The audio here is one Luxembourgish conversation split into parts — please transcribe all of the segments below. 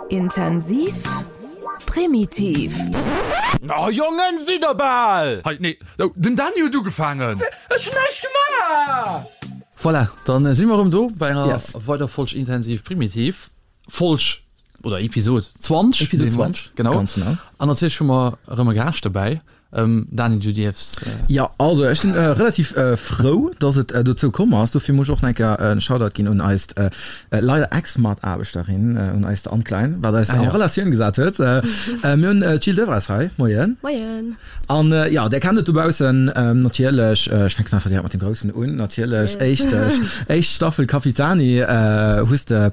Intensiv, primitiv. Oh Jongen, sidd der bal! Hei, nee, oh, den Dany huet ugefaangen! Ech hunn näischt gemaach! Voilà, dann si mer erëm do bei enger Yes. weider Folg Intensiv Primitiv. Folg oder Episod 20. Episod 20, Genau. ganz genau. An natierlech hu mer erëm e Gaascht dobäi. Dany, du dierfs. Jo, also ech sinn relativ frou, dass et dozou komm ass. Dofir muss ech och nach eng Kéier en Shoutout ginn un eist leider Ex-Mataarbechterin, un eist Anne Klein, wat eis an Relatioun gesat huet. Mir hunn d'Jill Devres hei. Moien. Moien. An jo, där kennt et dobaussen natierlech. Ech fänken einfach direkt mat dem Groussen un, natierlech. Éischt, éischt Staffel Capitani hues de.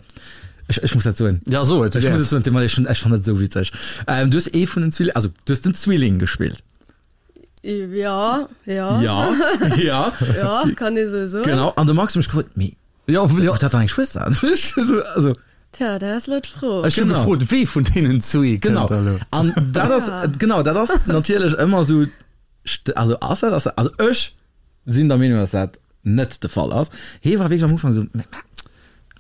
Ech, ech muss dat soen. Ja, so et. Ech muss et soen, Tim, ech, ech fand dat esou witzeg. Ähm, du hues ee vun den Zwilling, also du hues den Zwilling gespillt. Ja, ja. Ja, ja. Ja, kann ee sou soen. Genau, an de Max huet mech gefrot, mee Ja, ja. huet dat dann eng Schwëster? So, also. Tja, dat ass elo d'Fro. Ech hu Genau. gefrot, wee vun deenen zwee kënnt Genau. da elo? An dat ass, Ja. genau, dat ass natierlech ëmmer esou, st- also ass dat, ass dat, also ech sinn der Meenung, dass dat net de Fall ass. Hee war wierklech am Ufank esou, mee,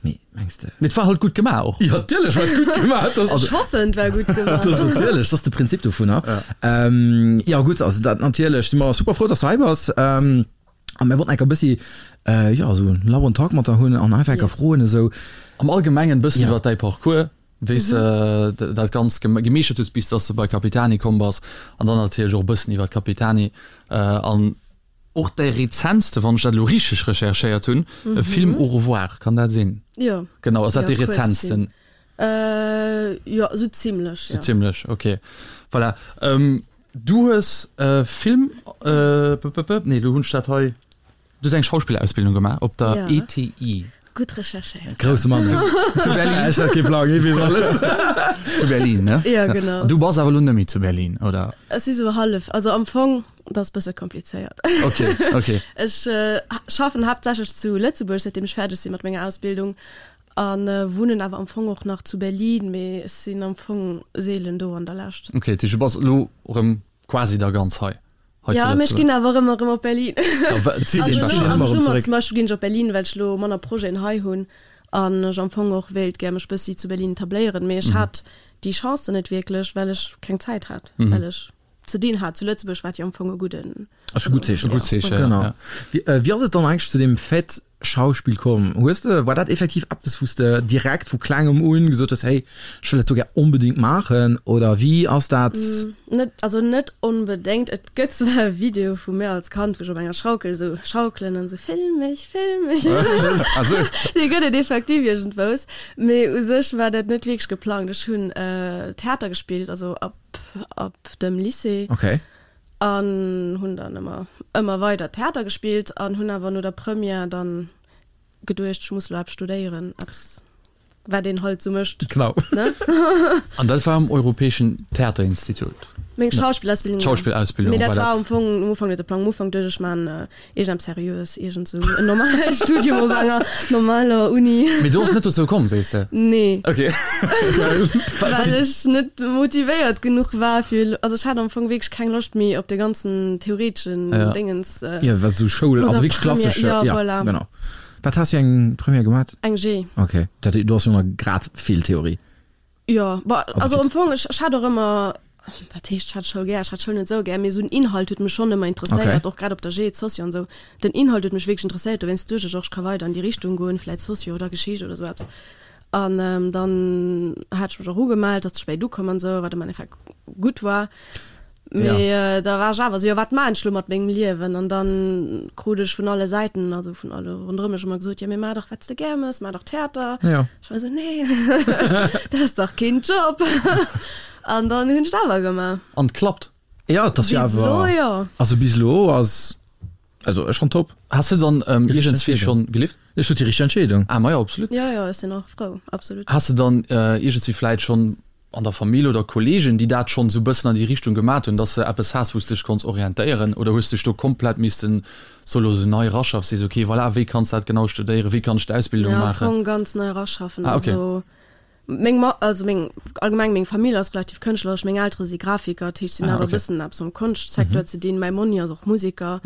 mee mengs de. Mee et war halt gutt gemaach och. Jo, natierlech war et gutt gemaach. Das, Ech hoffen, et war gutt gemaach. Das natierlech, dat ass de Prinzip dovunner. Ja, ähm, ja gutt, also dat natierlech si mer super frou, dass du hei bass. Ähm, a mir wollten enker e bëssi, äh, jo, esou en lauen Talk mat der hunn an einfach enker Yes. froen esou. Am Allgemengen e bëssen Ja. iwwer däi Parcours, wéi s de dat Ganzt gemeeschtert hues, bis dass de bei Capitani komm bass an dann natierlech och e bëssen iwwer Capitani an och däi rezentste, wann ech dat elo richteg recherchéiert hunn, Film Au revoir, kann dat sinn? Jo. Genau, ass dat Jo, dee rezentsten? Jo, esou zimlech, jo. Sou zimlech, ok. Voilà. Du hues Film, nee, elo hunn ech dat hei. Du hues eng Schauspillerausbildung gemaach op der Ja. ETI. Gutt recherchéiert. Grousse Mann. Zu Berlin. Ech hat kee Plang, hie weess alles. Zu Berlin, ne? Ja, genau. An du bass awer elo net méi zu Berlin, oder? Ech si sou hallef, also am Fong, dat ass bësse komplizéiert. Ok, ok. Ech schaffen haaptsächlech zu Lëtzebuerg, säitdeem ech fäerdeg si mat menger Ausbildung a wunnen awer am Fong och nach zu Berlin, mee ech sinn am Fong seelen do an der Lescht. Ok, dat heescht, du bass elo erëm quasi da ganz hei. Hei Ja, zu mee ech Lëtzebuerg. ginn awer ëmmer erëm op Berlin. Ja, wa- et zitt Also een elo wahrscheinlech am ëmmer erëm Summer zeréck. zum Beispill ginn ech op Berlin, well ech elo manner Projeten hei hunn an ech am Fong och wéilt gär mech bëssi zu Berlin etabléieren. Mee ech hat déi Chance dann net wierklech, well ech keng Zäit hat, well ech ze dinn hat zu Lëtzebuerg, wat jo am Fong e gudden, Ass e gutt Zeechen. E gutt Zeechen, ja. Genau. Ja. Wéi, wéi ass et dann eigentlech zu deem Fait Schauspill komm? Hues de, war dat effektiv eppes wou s de direkt vu klengem un gesot hues, hey, ech wëll dat do gär onbedéngt maachen oder wéi ass dat? Net, also net onbedéngt. Et gëtt zwar e Video vu mir als Kand, wou ech op enger Schaukel esou schaukelen an esou film mech, film mech. Dee gëtt et effektiv iergendwous. Mee u sech war dat net wierklech geplangt. Ech hunn Theater gespillt, also ab, ab dem Lycée. Okay. An hunn dann ëmmer, ëmmer weider Theater gespillt an hunn awer no der Première dann geduecht, ech muss elo eppes studéieren, eppes wat een halt sou mécht, Genau. ne? An dat war um Europäeschen Theaterinstitut? Meng Schauspillausbildung, jo. Schauspillausbildung Mee dat war war dat. am Fong am Ufank net de Plang. Am Ufank duecht ech, ech maan iergendeppes Seriöes, iergend sou en normalt Studium op enger normaler Uni. Mee du ass net dozou komm, sees de? Nee. Ok. Well ech net motivéiert genuch war fir, also ech hat am Fong wierklech keng Loscht méi op de ganzen theoreteschen Ja. Déngens. Jo, wat sou Schoul, also wierklech klassesch, ja, ja, voilà. genau. Wat has du fir eng Première gemat? Eng G. Ok, dat do ass jo nach grad vill Theorie. Jo, bon, Also also am Fong, ech, ech hat och ëmmer, wat heescht, ech hat Schoul gär, ech hat Schoul net esou gär, mee esou den Inhalt huet mech schonn ëmmer interesséiert, Okay. och grad op der G, d'Socio an esou. Den Inhalt huet mech wierklech interesséiert, dowéinst duecht ech och, ech ka weider an déi Richtung goen, vläit Socio oder Geschicht oder esou eppes. An dann hat ech mech och ugemellt, ass ze spéit ukomm an esou, wat am Endeffekt gutt war. Mee ja. da war ech awer esou, jo wat maan ech lo mat mengem Liewen? An dann krut ech vun alle Säiten, also vun alle ronderëm mech ëmmer gesot, jo mee maach dach wat s de gär mëss, maach dach Theater. Ja. Ech war esou, nee, dat ass dach keen Job. An dann hunn ech et awer gemaach. An et klappt. Ja, et ass jo Bis elo, awer, jo. also bis elo ass, also ech fann top. Has de dann iergendswéi schonn gelift? Ech huet déi richteg Entscheedung. Ah, majo, absolut. Jo, jo, ech sinn och frou, absolut. Has de dann iergendswéi vläit schonn an der Famill oder Kollegen, déi dat schonn esou bëssen an déi Richtung gemat hunn, dass de eppes has, wou s de dech konns orientéieren? Oder hues de dech do komplett missten solo esou nei eraschaffen, sees, ok, voilà, wéi kanns de dat genau studéieren, wéi kann ech d'Ausbildung Ja, am maachen? Fong ganz nei eraschaffen. Ah, ok. Also meng Ma, also meng, allgemeng meng Famill ass relativ kënschtleresch, meng Eltere si Grafiker, dat heescht, si hunn Ah, awer e ok. bëssen eppes mam Konschtsecteur ze dinn. Mäi Monni ass och Museker,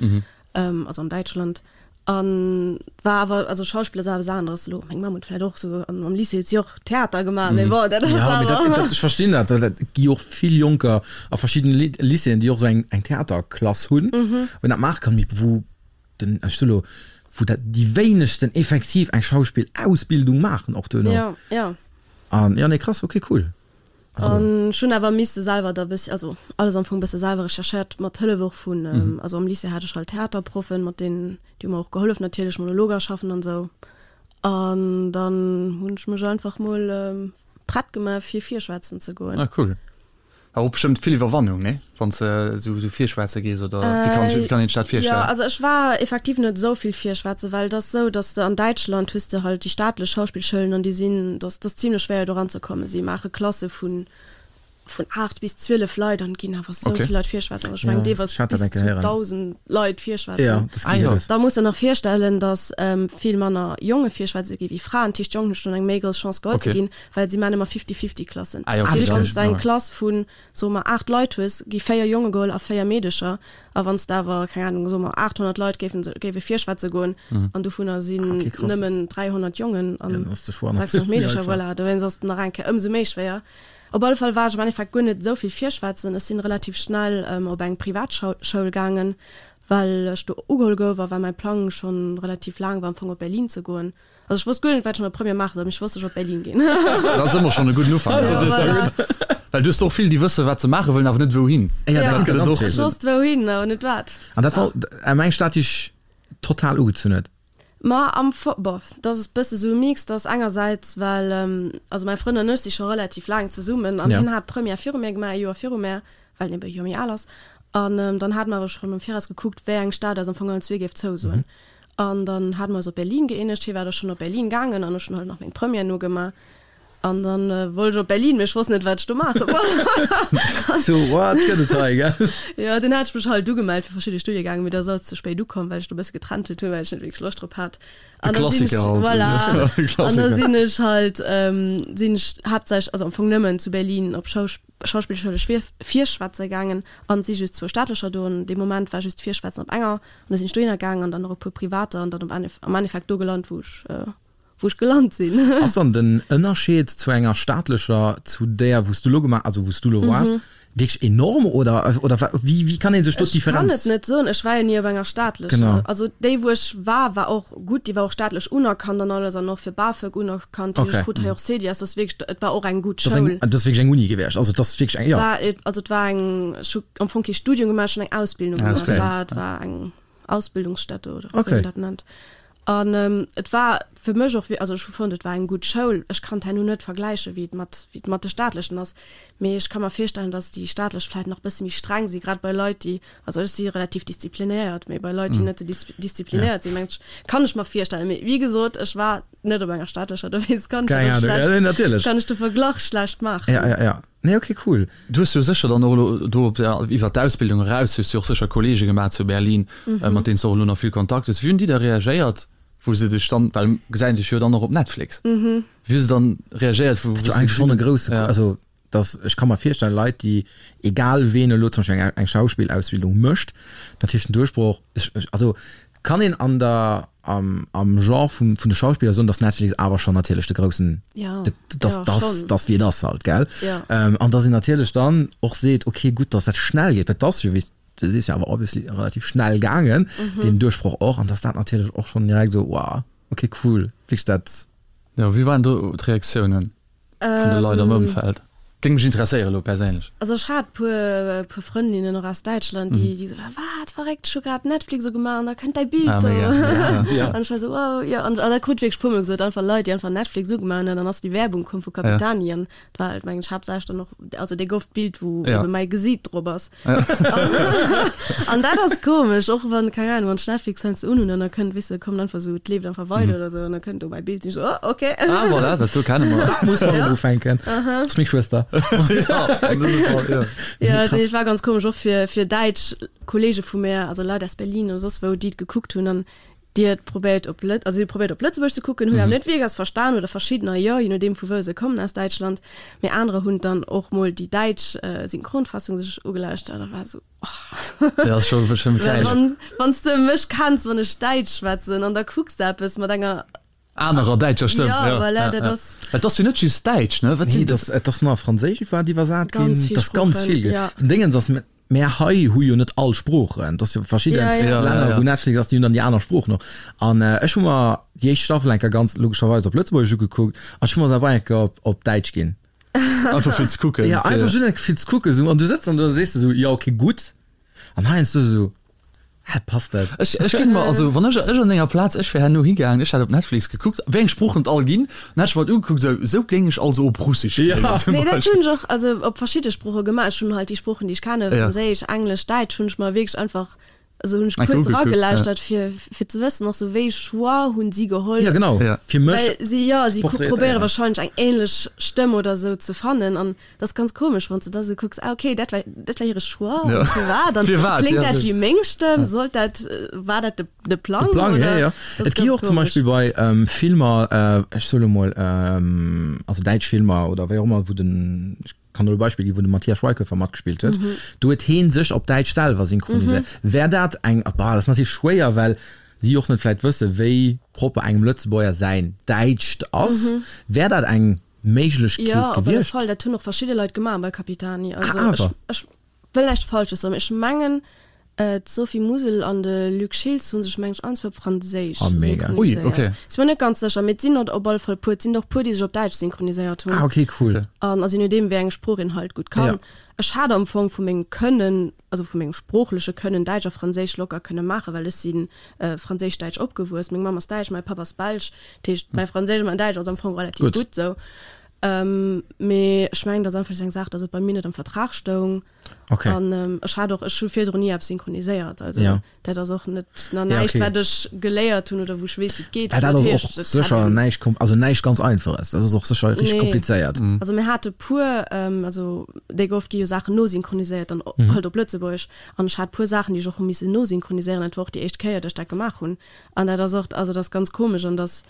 also an Däitschland. An war awer, also Schauspill ass awer eppes aneres elo. Meng Mamm huet vläicht och esou am Lycée huet si och Theater gemaach, mee bon, dat ass Ja, mee dat, awer. dat, ech verstinn dat, well et gi och vill Jonker a verschiddene Lycéeën, déi och esou eng, eng Theaterklass hunn, wou een dat maache kann, mee wou den, ech soe lo, wou dat déi wéinegsten effektiv eng Schauspillausbildung maachen och duerno. Ja, ja. An, ja, nee, krass, okay, cool. An ech hunn awer misse selwer da bëssi, also alles am Fong bësse selwer recherchéiert, mat Hëllef och vun, also am Lycée hat ech halt Theaterproffen, mat deenen, déi hu mer och gehollef natierlech, Monologer schaffen an esou. An dann hunn ech mech einfach mol prett gemaach fir virschwätzen ze goen. Ah cool. Awer och bestëmmt vill Iwwerwannung, nee? Wann s de esou esou virschwätze gees oder wéi kann wéi kann een sech dat virstellen? Jo, also ech war effektiv net esou vill virschwätzen, well et ass esou, datt s de an Däitschland hues de halt déi staatlech Schauspillschoulen an déi sinn, datt ass zimlech schwéier do eranzekommen. Si maache Klasse vun vun 8 bis 12 Leit an et ginn awer esou vill Leit virschwätzen. Also ech mengen deelweis bis zu 1.000 Leit virschwätzen. Da muss de nach virstellen, datt vill manner Jonge virschwätze gi wéi Fraen. Dat heescht d'Jongen hu schonn eng méi grouss Chance geholl ze ginn, well si maachen ëmmer Fifty-Fifty-Klassen. Dat heescht wann s de eng Klass vun soe mer 8 Leit hues, gi 4 Jonge geholl a 4 Meedecher. A wann s de awer, keng Anung, soe mer 800 Leit géifen, géife virschwätze goen an dovunner sinn nëmmen 300 Jongen an 600 Meedecher, voilà, dowéinst ass et nach eng Kéier ëmsou méi schwéier. Op alle Fall war ech am Endeffekt guer net esou vill virschwätzen. Ech sinn relativ schnell op eng Privatschoul gaangen, well ech do ugeholl gouf a well mäi Plang schonn relativ laang war am Fong op Berlin ze goen. Also ech wosst guer net wat ech an der Première maache soll, mee ech wosst ech op Berlin ginn. Dat ass ëmmer schonn e gudden Ufank. Ja, voilà. Well du hues och vill déi wësse wat se maache wëllen, awer net wouhin. Ja, dat gëtt et och. Ech wosst wouhin, awer net wat. An dat war eng Stad déi dech total ugezunn huet? Ma am Fong, bon, dat ass e bësse sou e Mix, dat ass engersäits well, also mäi Frënd an ech si scho relativ laang zesummen an hien hat d'Première viru mir gemaach, e Joer viru mär, well en ebe e Joer méi al ass. An dann hate mer awer schonn am Viraus gekuckt, wéi eng Stad eis am Fong allen zwee géif zousoen. An dann hate mer eis op Berlin gëeenegt. Hie war da schonn op Berlin gaangen an ech hunn halt nach meng Première nogemaach. An dann wollt ech op Berlin, mee ech wosst net, wat ech do maache soll. So, wat gëtt et hei, gell? Jo, dunn hat ech mech halt ugemellt fir verschidde Studiegänge, mee dat ass alles ze spéit ukomm, well ech do e bësse getrentelt hunn, well ech net wierklech Loscht drop hat. De An da sinn ech, Klassiker halt. voilà. De An da Klassiker. sinn ech halt, sinn ech haaptsächlech, also am Fong nëmmen zu Berlin op Schausch, Schauspillschoul ech virschwätze gaangen an et si just zwou staatlecher do an dee Moment war just virschwätzen op enger an da sinn ech dohinner gaangen an dann nach e puer privater an dann am Endeffekt do gelant wou ech wou ech gelant sinn. Ass dann den Ënnerscheed zu enger staatlecher zu där wou s du elo gemaach, also wou s du elo waars, wierklech enorm oder oder wéi wéi kann ee sech do Ech kann d'Differenz? et net soen, ech war jo ni op enger staatlecher. Genau. Also déi wou ech war, war och gutt, déi war och staatlech unerkannt an alles an och fir BAföG unerkannt. Okay. Ech krut hei och Cedias, dat ass wierklech, et war och eng gutt Dat ass eng, Schoul. dat ass wierklech eng Uni gewiescht, also et ass wierklech eng, jo. War, also et war eng, ech hu am Fong kee Studium gemaach, ech hunn eng Ausbildung gemaach. Okay. Et war, et war eng Ausbildungsstätte oder wéi Okay. een dat nennt. An et war fir mech och, also ech hu fonnt, et war eng gutt Schoul. Ech kann et herno net vergläichen, wéi et mat, wéi et mat de staatlechen ass, mee ech ka mer virstellen, datt déi staatlech vläicht nach e bësse méi streng si, grad bei Leit, déi, also ech si relativ disziplinéiert, mee bei Leit, déi net esou disziplinéiert sinn, mengen ech, kann ech mer virstellen. Mee wéi gesot, ech war net op enger staatlecher, dowéinst kann ech Keng dat och Ahnung, ja, schlecht, nee, natierlech. kann ech de Verglach schlecht maachen. Ja, ja, ja. Nee, okay, cool. Du hues jo sécher dann och elo do op der, iwwert d'Ausbildung eraus hues du och sécher Kollege gemaach zu Berlin, mat deenen s de och elo nach vill Kontakt hues. Wéi hunn déi da reagéiert, wou se dech dann, well gesäit dech jo dann och op Netflix, wéi hu se dann reagéiert, wou Dat wou jo se eigentlech schonn gesinn e grousse, ja. also dass, ech ka mer virstellen, Leit déi, egal ween elo zum Beispill eng eng Schauspillausbildung mécht, natierlech den Duerchbroch, ech ech also kann een an der am am Genre vum vun de Schauspiller soen, dass Netflix awer schonn natierlech de groussen, Ja, de dass ja, dass schonn. dass wéi et ass halt, gell? Ja. An dass een natierlech dann och seet, okay gutt, dass dat schnell geet, well 't ass jo wéi du sees jo awer obviously relativ schnell gaangen, deen Duerchbroch och, an dass dat natierlech och schonn direkt esou, wow, okay cool, wierklech dat. Jo, wéi waren do d'Reaktiounen? Vun de Leit am Ëmfeld? Géing mech interesséieren elo perséinlech. Also ech hat puer puer Frëndinnen och aus Däitschland, déi déi esou waren, wat verréckt, ech hu grad Netflix ugemaach an da kënnt däi Bild Ah, do. mega. Ja, ja. An ech war esou, wow, jo. An an dat krut wierklech puer mol gesot, einfach Leit, déi einfach Netflix ugemaach hunn an dann ass déi Werbung komm vu Capitani an et war halt mengen ech haaptsächlech dann och, also dee gouf d'Bild wou Ja. ebe mäi Gesiit drop ass. An dat ass komesch, och wann, keng Ahnung, wann ech Netflix heiansdo unhunn an da kënnt, weess de, kommt einfach esou, et leeft einfach weider oder esou an da kënnt do mäi Bild, sinn ech esou, oh, okay. Ah, voilà, dat do kenne mer. Dat muss man ufänken. Dat ass meng Schwëster. Ja, an dësem Fall, ja. Ja, nee, et war ganz komesch, och fir, fir däitsch Kollege vu mär, also Leit aus Berlin oder soss wou, déi et gekuckt hunn an. Déi huet probéiert op Lët, also si huet probéiert op Lëtzebuergesch ze kucken, hunn awer net wierklech eppes verstan oder verschiddener jo, je nodeem vu wou se kommen aus Däitschland. Mee anerer hunn dann och mol déi däitsch Synchronfassung sech ugelauschtert a war esou, oh. Dat ass scho schonn Well wann, wann s de mech kenns, wann ech Däitsch schwätzen an da kucks de eppes mat enger. Anerer däitscher Stëmm, Jo, jo, voilà, ja, dat ja. ass. Et ass jo net just Däitsch, ne? Wat Nee, sinn et ass, et ass nach Franséisch iwwer iwwersat ginn. Ganz vill Et ass ganz Sproochen, vill ginn. ja. Den Déngens ass, Mär hei hu jo net all Sproochen. Et ass jo verschidde Ja, ja. Ja, Länner, ja, wou ja. Netflix ass, déi hunn dann déi aner Sproochen och. An ech hu mer déi éischt Staffel eng Kéier ganz logescherweis op Lëtzebuergesch ugekuckt an ech hu mer se awer eng Kéier op, op Däitsch ginn. Einfach fir ze kucken. Ja, einfach just eng Kéier fir ze kucken esou. An du sëtz dann do an da sees de esou, jo okay, gutt. An heiansdo esou, hä, passt dat? Ech, ech géing mer, also wann ech, ech an denger Plaz, ech wär herno higaangen, ech hätt op Netflix gekuckt, wéi eng Sproochen et all ginn, dann hätt ech mer dat ugekuckt, esou, esou géing ech also op Russesch Ja. kléngen zum Nee, dat Beispill. hunn ech och also op verschidde Sprooche gemaach. Ech hunn halt déi Sproochen, déi ech kennen, Ja. Franséisch, Englesch, Däitsch, hunn ech mer wierklech einfach, also hunn ech Eng Kéier kuerz ugekuckt, ja. eragelauschtert, fir, fir ze wëssen och sou, wéi Choix hunn si geholl. Ja, genau. Ja. Fir mech Well si, jo, si porträtéieren. probéiere wahrscheinlech eng ähnlech Stëmm oder sou ze fannen an Dat ass ganz komesch, wann s de da sou kucks, ah okay, dat war, dat war hire Choix, Ja. an firwat? An Firwat, kléngt ja. dat wéi meng Stëmm? Sollt dat, war dat de, de Plang, De Plang, oder? ja, ja. Dat ass Et gi ganz och zum komesch. Beispill bei ähm, Filmer, äh, ech soe lo mol, ähm, also däitsch Filmer oder wéi och ëmmer, wou den, ech kann do e Beispill ginn, wou de Matthias Schweighöfer matgespillt huet, Mhm. do huet heen sech op Däitsch selwer synchroniséiert. Wär dat eng, bah, dat ass natierlech schwéier, well si och net vläit wësse wéi propper engem Lëtzebuerger säin Däitscht ass, wär dat eng Méiglechkeet Jo, op alle gewiescht? Fall. Dat hunn och verschidde Leit gemaach bei Capitani. Also Ah, ech, awer. ech wëll näischt Falsches soen, mee ech mengen, d'Sophie Musel an de Luc Schiltz hu sech, meng ech, allen zwou op Franséisch Ah, mega. Ui, synchroniséiert. okay. Si mir net ganz sécher, mee et sinn der op alle Fall puer. Et sinn der och puer, déi sech op Däitsch synchroniséiert hunn. Ah, okay, cool. An also je nodeem, wéi eng Sprooch een halt gutt kann. Ja. Ech hat am Fong vu mengem Kënnen, also vu mengem sproochleche Kënnen, Däitsch a Franséisch locker kënne maachen, well ech si franséisch-däitsch opgewuess. Meng Mamm ass däitsch, mäi Papp ass belsch. Dat heescht, mäi Franséisch a mäin Däitsch ass am Fong relativ Gutt. gutt esou. Mee ech mengen, dat ass einfach just eng Saach, datt et bei mir net am Vertrag stoung. Okay. An ech hat och, ech hu virdrun ni eppes synchroniséiert. Also Ja. dat ass och net nach Ja, näischt, okay. wat ech geléiert hunn oder wou ech weess, wéi et geet. Well dat Dat ass heescht, och et hätt sécher een. näischt kom-, also näischt ganz Einfaches. Dat ass och sécher richteg Nee. komplizéiert. Also mir hate puer, also déi oft gi jo Saachen nosynchroniséiert dann halt op Lëtzebuergesch. An ech hat puer Saachen, déi ech och hu missen nosynchroniséieren. Dat war och déi éischt Kéier, datt ech dat gemaach hunn. An dat ass och, also dat ass ganz komesch an dat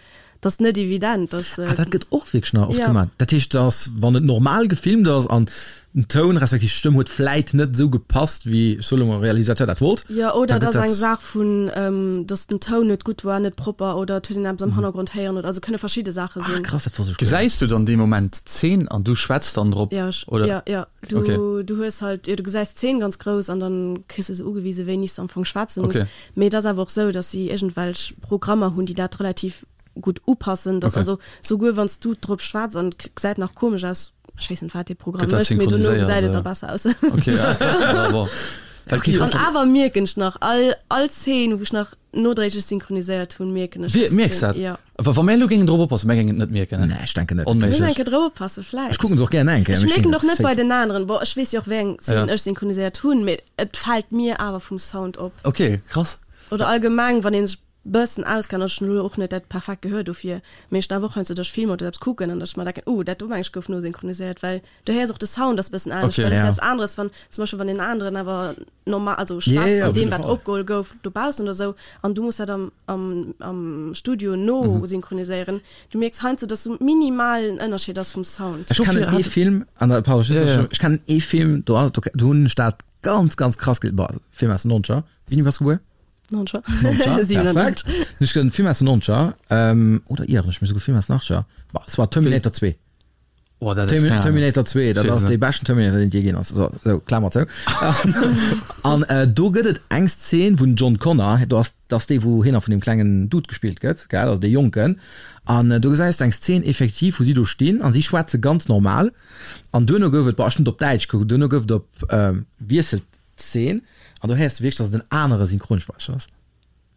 ass net evident, dass. Ah, dat gëtt och wierklech nach oft Ja. gemaach. Dat heescht, dass wann et normal gefilmt ass an den Toun respektiv d'Stëmm huet vläit net esou gepasst, wéi, ech soe lo mol, Realisateur dat wollt, Jo, oder da et gëtt ass eng dat. Saach vun, dass den Toun net gutt war, net propper oder et huet een eppes am Hannergrond héieren oder, also kënne verschidde Saache Ah, sinn. krass, dat wosst ech guer net. Gesäis du dann dee Moment d'Zeen an du schwätz dann drop, Ja, ech, oder? ja, ja. Du, Okay. du hues halt, jo, du gesäis d'Zeen ganz grouss an dann kriss de sou ugewise wéini s de am Fong schwätze muss. Okay. Mee et ass awer och sou, datt si iergendwelch Programmer hunn, déi dat relativ gutt upassen, datt Okay. also souguer wann s du drop schwätz an et gesäit nach komesch aus, ech weess net wat dee Programm Gëtt dat mécht, mee dono synchroniséiert, gesäit et da ja. besser aus. Okay, ja, krass, ja, bon. Well Okay, ki- An awer mierken ech nach all, all Szene, wou ech nach nodréiglech synchroniséiert hunn, mierken ech Wie, mierks extrem, dat? jo. Wa wa mär elo géingen drop oppassen, mär géingen et net mierken, ne? Nee, ech denken net. Muss Onméiglech. eng Kéier drop oppassen, vläicht. Ech kucken se och gär eng Kéier, Ech mee ech mierken géing och net safe. bei den aneren. Bon, ech weess jo och wéi eng Szenen Ja. ech synchroniséiert hunn, mee et fält mir awer vum Sound op. Okay, krass. Oder allgemeng, wann ee sech bëssen auskennt, also ech hunn elo och net dat perfekt Gehör dofir, mee ech hunn awer och heiansdo, datt ech Filmer oder eppes kucken an datt ech mer denken, oh, dat do meng ech gouf nosynchroniséiert, well du héiers och de Sound ass bëssen anescht, Okay. well et ass Ja. eppes aneres, wann zum Beispill wann een aneren awer normal, also Ja, schwätzt ja, an op deem jidde wat Fall. opgeholl gouf dobaussen oder sou an du muss dat am am am Studio nosynchroniséieren, du mierks heiansdo, datt sou minimalen Ënnerscheed ass vum Sound. Ech kennen ee Film, an da, pardon, Ja, ja. ech kennen ee Film, do ass, do, do hunn ech dat ganz, ganz krass ge-, boah, Film aus den Nonzeger, wéini bass du gebuer? Nonzeger. Nonzeger, 97. perfekt. Ech kennen Film aus den Nonzeger, ähm, oder ieren ech mech souguer Film aus den Achtzeger, boah, es war Terminator 2. Oh, dat ass keng Ahnung. Terminator 2, dat ass dee beschten Terminator, deen et jee ginn ass. So, so, Klammer zou. An äh, do gëtt et eng Szene, wou den John Connor, do ass, dat ass dee, wou hien nach vun deem klengen Dude gespillt gëtt, gell, also dee Jonken. An äh, do gesäis de eng Szene effektiv, wou si do stinn an si schwätze ganz normal. An duerno gouf et, boah, ech hunn et op Däitsch gekuckt, duerno gouf et op, ähm, wiesselt d'Szene an do héiers de wierklech, datt et en anere Synchronsprecher ass.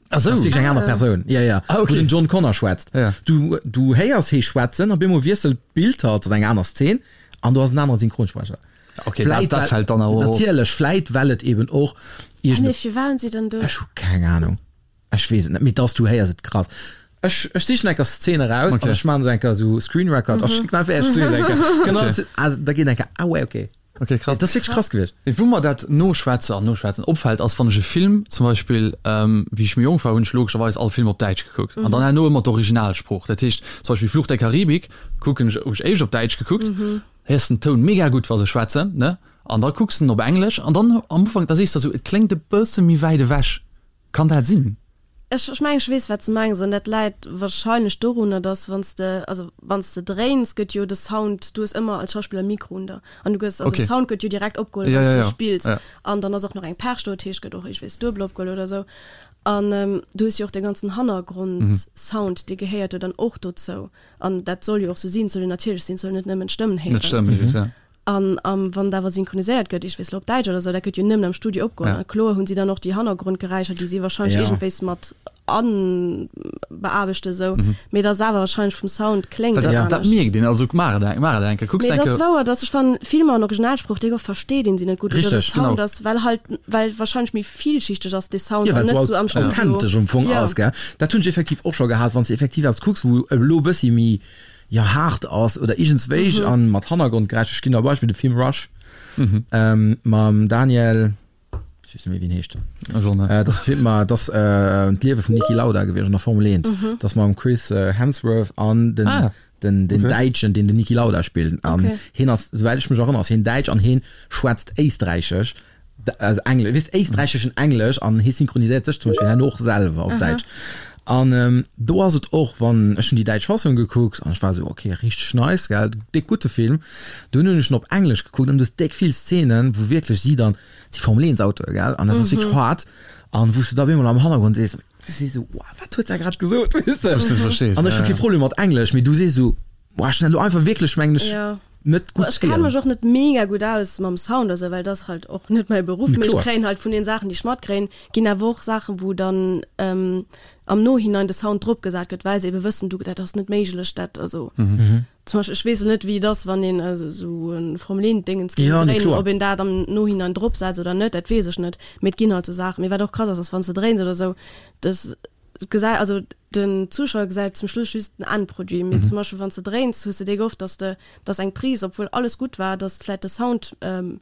Ach sou. Dat ass wierklech eng aner Persoun. Ja, ja. Ah, okay. Wou den John Connor schwätzt. Ja. Du, du héiers hee schwätzen, op eemol wiesselt d'Bild halt, ass eng aner Szen, an do ass en anere Synchronsprecher. Okay, dat, dat fält dann awer op. Natierlech, vläit well et eben och Ah, nee, iergend. firwat hunn si dann do. Ech hu keng Ahnung. Ech weess et net, mee dass du héiers et krass. Ech, ech sichen eng Kéier Szene eraus Okay. an ech maachen esou eng Kéier esou Screen Record a schécken einfach Iech zu eng Kéier. Genau, Okay. also da geet eng Kéier, ah ouais, okay. Okay, krass. Dat ass wierklech krass gewiescht. Wou mer dat Noschwätze an Noschwätzen opfält, ass, wann ech e Film zum Beispill, wéi ech méi jonk war, hunn ech logescherweis all Film op Däitsch gekuckt an dann herno ëmmer d'Originalsprooch. Dat heescht zum Beispill Fluch der Karibik kucken ech, hu ech éischt op Däitsch gekuckt, héiers den Toun mega gutt, wa se schwätzen, ne? An da kucks de en op Englesch an dann am Ufank, da sees de esou, et kléngt e bësse méi wäit ewech. Kann dat sinn? Ech ech mengen, ech weess, wat s de mengs. An dat läit warscheinlech dorunner, dass wann s de, also wann s de dréins, gëtt jo de Sound, du hues ëmmer als Schauspiller e Mikro un der an du gëss, also de Sound gëtt jo direkt opgeholl, wann s de spills. An dann ass och nach eng Perch do, dat heescht, gëtt och iergendwéis duebel opgeholl oder esou. An du hues jo och de ganzen Hannergrondsound, dee gehéiert jo dann och dozou. An dat soll jo och sou sinn, et soll jo natierlech sinn, et soll net nëmmen d'Stëmmen héieren. Net d'Stëmmen, just, ja. An wann et awer synchroniséiert gëtt, ich weess lo op Däitsch oder sou, dat gëtt jo nëmmen am Studio opgeholl. Ja. A kloer hunn si dann och déi Hannergrondgeräischer, déi si wahrscheinlech Ja. iergendwéis mat anbeaarbechten esou, mee et ass awer wahrscheinlech vum Sound kléngt Well et dat, dat anescht. mierkt een, also maach et eng, maach et eng Kéier, kucks Mee eng et ass Kéier. wouer, dass ech fannen, Filmer an Originalsprooch, déi oft versteet een si net gutt oder de Richteg, Sound genau. ass, well halt, well wahrscheinlech méi villschichteg ass dee Sound Ja, an well net et sou am sou Studio. authentesch am Fong Ja. ass, gell. Dat hunn ech effektiv och scho gehat, wann s de effektiv eppes kucks, wou elo e bëssi méi, jo haart ass oder iergendswéi an mat Hannergrondgeräischer. Ech ginn der e Beispill, de Film Rush mam Daniel, ech weess net méi wéi en heescht, dat ass Film, dat ass d'Liewe vum Niki Lauda gewiescht an der Formel 1, dat ass mam Chris Hemsworth an den den den Däitschen, deen den Niki Lauda spillt an hien ass, souwäit ech mech erënnere, ass hien Däitsch an hien schwätzt Éisträichesch. also Engl weess éisträicheschen Englesch an hie synchroniséiert sech zum Beispill herno och selwer op Däitsch. An do ass et och, wann, ech hunn déi däitsch Fassung gekuckt an ech war esou, ok, richteg nice, gell, déck gutte Film. Dunn hunn ech en op Englesch gekuckt an du hues déck vill Szenen, wou wierklech si dann, et si Formel 1 Autoe, gell, an dat ass wierklech haart an wou s du da op eemol am Hannergrond sees, du sees esou, wow, wat huet se grad gesot, weess de? Wou s du net verstees, An ech hu ja, kee ja. Problem mat Englesch, mee du sees esou, Boah, ech hunn dat elo einfach wierklech, mengen ech, net gutt Ech kenne mech och net mega gutt aus mam Sound oder sou, well dat ass halt och net mäi Beruff. Mee ech kréien halt vun den Saachen, déi ech matkréien, ginn awer och Saachen, wou dann am Nohinein de Sound drop gesat gëtt, well se ebe wëssen, du, dat ass net méiglech, dat, also zum Beispill, ech weess elo net, wéi et ass, wann een esou e Formel 1 Déngens géing dréinen, ob een dat am Nohinein drop setzt oder net, dat weess ech net. Mee et ginn halt sou Saachen. Mee wat och krass ass, ass wann s de dréins oder sou, dass gesäit, also den Zuschauer gesäit zum Schluss just den Endproduit, mee zum Beispill wann s de dréins, hues de déi oft, dass de, dass eng Prise, obwuel alles gutt war, dass vläit de Sound, den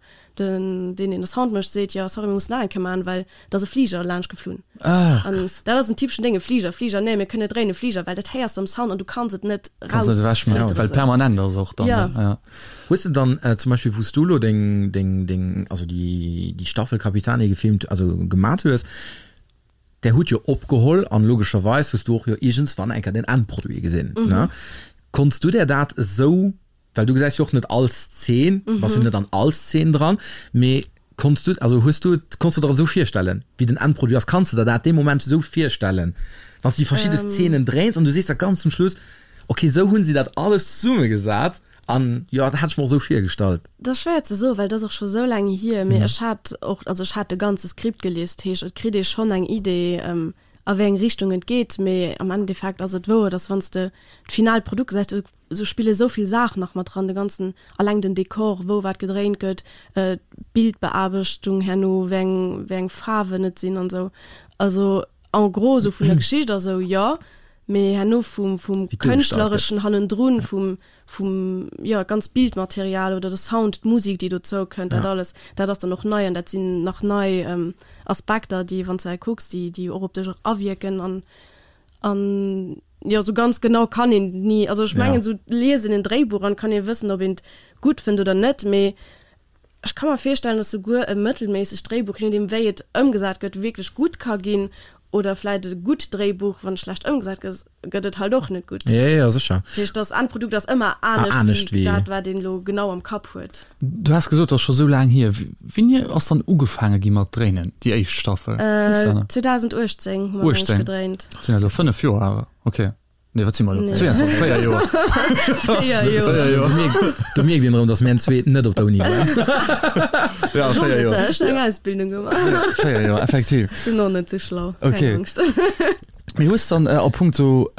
deen deen de Sound mécht, seet, jo sorry mir mussen nach eng Kéier maachen, well et ass e Fliger laanscht geflunn. An dat ass en typeschen Déng, e Fliger, Fliger, nee mir kënnen net dréinen, e Fliger, well dat héiers de am Sound an du kanns et net Kanns net ewechmaachen, rausfilteren. well et permanent ass och dann, Jo. ja. Hues de dann zum Beispill wou s du elo deng, deng, deng, also déi, déi Staffel Capitani gefilmt, also gemat hues, Där hutt jo opgeholl an logescherweis hues du och jo iergendswann eng Kéier den Endproduit gesinn, ne? Konns du där dat esou, well du gesäis jo och net all Szen, bass jo net an all Szen dran, mee konns du, also hues du et, konns du der et esou virstellen, wéi den Endproduit ass? Kanns de der dat dee Moment esou virstellen, wann s du déi verschidde Szenen dréins an du sees da ganz zum Schluss, okay, esou hunn si dat alles zesummegesat? An jo, dat hat ech mer och esou virgestallt. Dat ass schwéier ze soen, well dat ass och scho sou laang hier. Mee ech hat och, also ech hat de ganze Skript gelies, dat heescht et kritt ee schonn eng Idee, a wéi eng Richtung et geet. Mee am Endeffekt ass et wouer, dass wann s de d'finalt Produkt gesäis, do sou spille sou vill Saachen nach mat dran, de ganzen, alleng den Dekor, wou wat gedréint gëtt, d'Bildbeaarbechtung herno, wéi eng, wéi eng Faarwen et sinn an esou. Also en gros esou vun der Geschicht a sou, jo. Mee herno vum, vum Kënschtlereschen hannendrun, vum, vum, jo, ganz Bildmaterial oder de Sound, d'Musik, déi dozou kënnt, dat alles, dat ass dann och nei an dat sinn nach nei Aspekter, déi, wann s du hei kucks, déi, déi och op dech awierken an, an, jo, sou ganz genau kann een ni, also ech mengen, sou liesen en Dréibuch an kann ee wëssen, ob een et gutt fënnt oder net, mee Ech ka mer virstellen, dass souguer e mëttelméissegt Dréibuch, je nodeem wéi et ëmgesat gëtt, wierklech gutt ka ginn, oder vläit e gutt Dréibuch, wann et schlecht ëmgesat gëtt, gëtt et halt och net gutt. Jo, jo, sécher. Dat heescht, das Endprodukt ass ëmmer anescht wéi dat, wat een elo genau am Kapp huet. Du has gesot, et ass scho sou laang hier. Wéini ass dann ugefaange gi mat dréinen, déi éischt Staffel? 2018 hu mer eng gedréint. Dat sinn elo 5 Joer awer, ok. Nee, wat si mer elo? 22, 4 Joer. 4 Joer. Do mierkt een erëm, datt mir zwee net op der Uni waren. Ja, 4 Joer. Ech hunn eng Ausbildung gemaach. 4 Joer, effektiv. Sinn och net sou schlau. Okay. Keng Angscht. Mee hues dann a punkto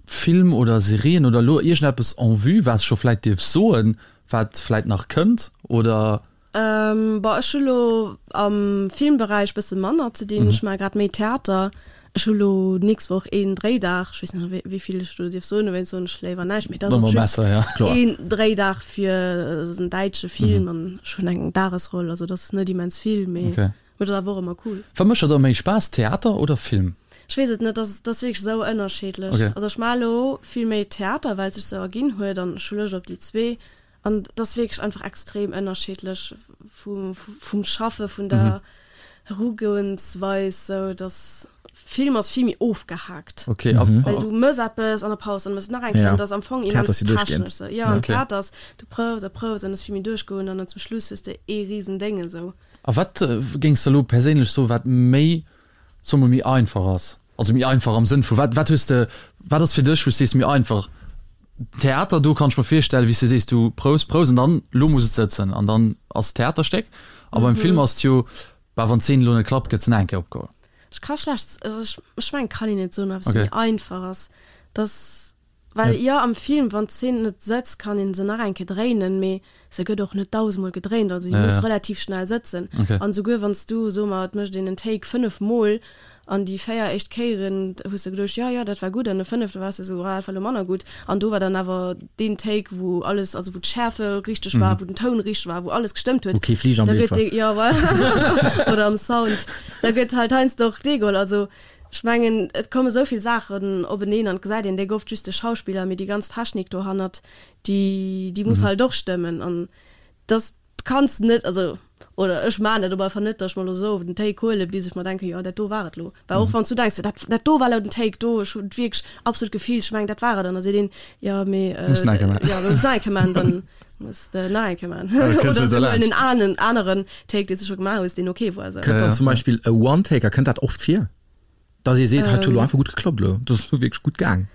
Film oder Serien oder elo iergendeppes en vue, wat s scho vläit dierfs soen, wat vläit nach kënnt oder? Bon, ech hu lo am Filmberäich bësse manner ze dinn. Ech maache grad méi Theater. Ech hu lo d'nächst Woch een Dréidag, ech weess net wéi vill ech do dierf soen, dowéinst soen ech léiwer näischt, mee et ass och just een Dréidag fir en däitsche Film an ech hunn eng Dagesroll, also et ass net immens vill, mee et ass awer och ëmmer cool. Wat mécht der da méi Spaass, Theater oder Film? Ech weess et net, et ass wierklech esou ënnerscheedlech. Also ech maache lo vill méi Theater, well et sech esou erginn huet an ech hu Loscht op déi zwee An et ass wierklech einfach extrem ënnerschiddlech vum Schaffe, vun der Erugoensweis, sou dass Film ass vill méi ofgehaakt. Okay. Well du mëss eppes an der Paus, dann mëss nach eng Kéier, an dat ass am Fong immens technesch sou. Jo, an Theater ass, du proufs a proufs an et ass vill méi duerchgoend an dann zum Schluss hues de ee risen Déng esou. A wat géings de elo perséinlech soen, wat méi, soe mer, méi einfach ass? Also méi einfach am Sënn vu, wat, wat hues de, wat ass fir dech, wou s de sees, méi einfach? Theater, do kann ech mer virstellen, wéi s de sees, du prous, prous an dann, lo muss et sëtzen an dann ass d'Theaterstéck. A beim Film ass et jo, bah, wann d'Zeen elo net klappt, gëtt se nach eng Kéier opgeholl. Ech ka schlecht, also ech, ech mengen, kann een net soen, ob eppes méi einfach ass. Dass, well jo, am Film, wann d'Zeen net sëtzt, kann een se nach eng Kéier dréinen, mee se gëtt och net dausendmol gedréint, also déi muss relativ schnell sëtzen. An esouguer wann s du, soe mer, et mécht een en Take 5 mol an déi 4 éischt Kéieren hues de geduecht, jo, jo, dat war gutt, an de fënnefte waars de esou, ah, dat war elo manner gutt, an do war dann awer deen Take, wou alles, also wou d'Schärfe richteg war, wou den Toun richteg war, wou alles gestëmmt huet. Wou kee Fliger am Bild war. Jo, voilà. Oder am Sound. Da gëtt halt heiansdo och dee geholl. Also ech mengen, et komme sou vill Saachen openeen an et gesäit een déck oft just de Schauspiller, mee déi ganz Technik dohannert, déi déi muss halt och stëmmen an dass kanns net, also oder ech maan dat op alle Fall net, dass ech mer lo sou den Take huelen bis ech mer denken, jo dat do war et lo. Well och wann s du denks, jo dat dat do war lo den Take do, ech hunn et wierklech absolut gefillt, ech mengen dat war et an da seet een, jo mee Muss nach eng Kéier maan. jo muss nach eng Kéier maan, dann muss de nach eng Kéier maan oder se huelen en anen aneren Take dee s de scho gemaach hues, deen ok war sou. Kënnt dann zum Beispill e One-Taker, kënnt dat oft vir? Dass ee seet, hei huet elo einfach gutt geklappt elo, dat ass elo wierklech gutt gaang.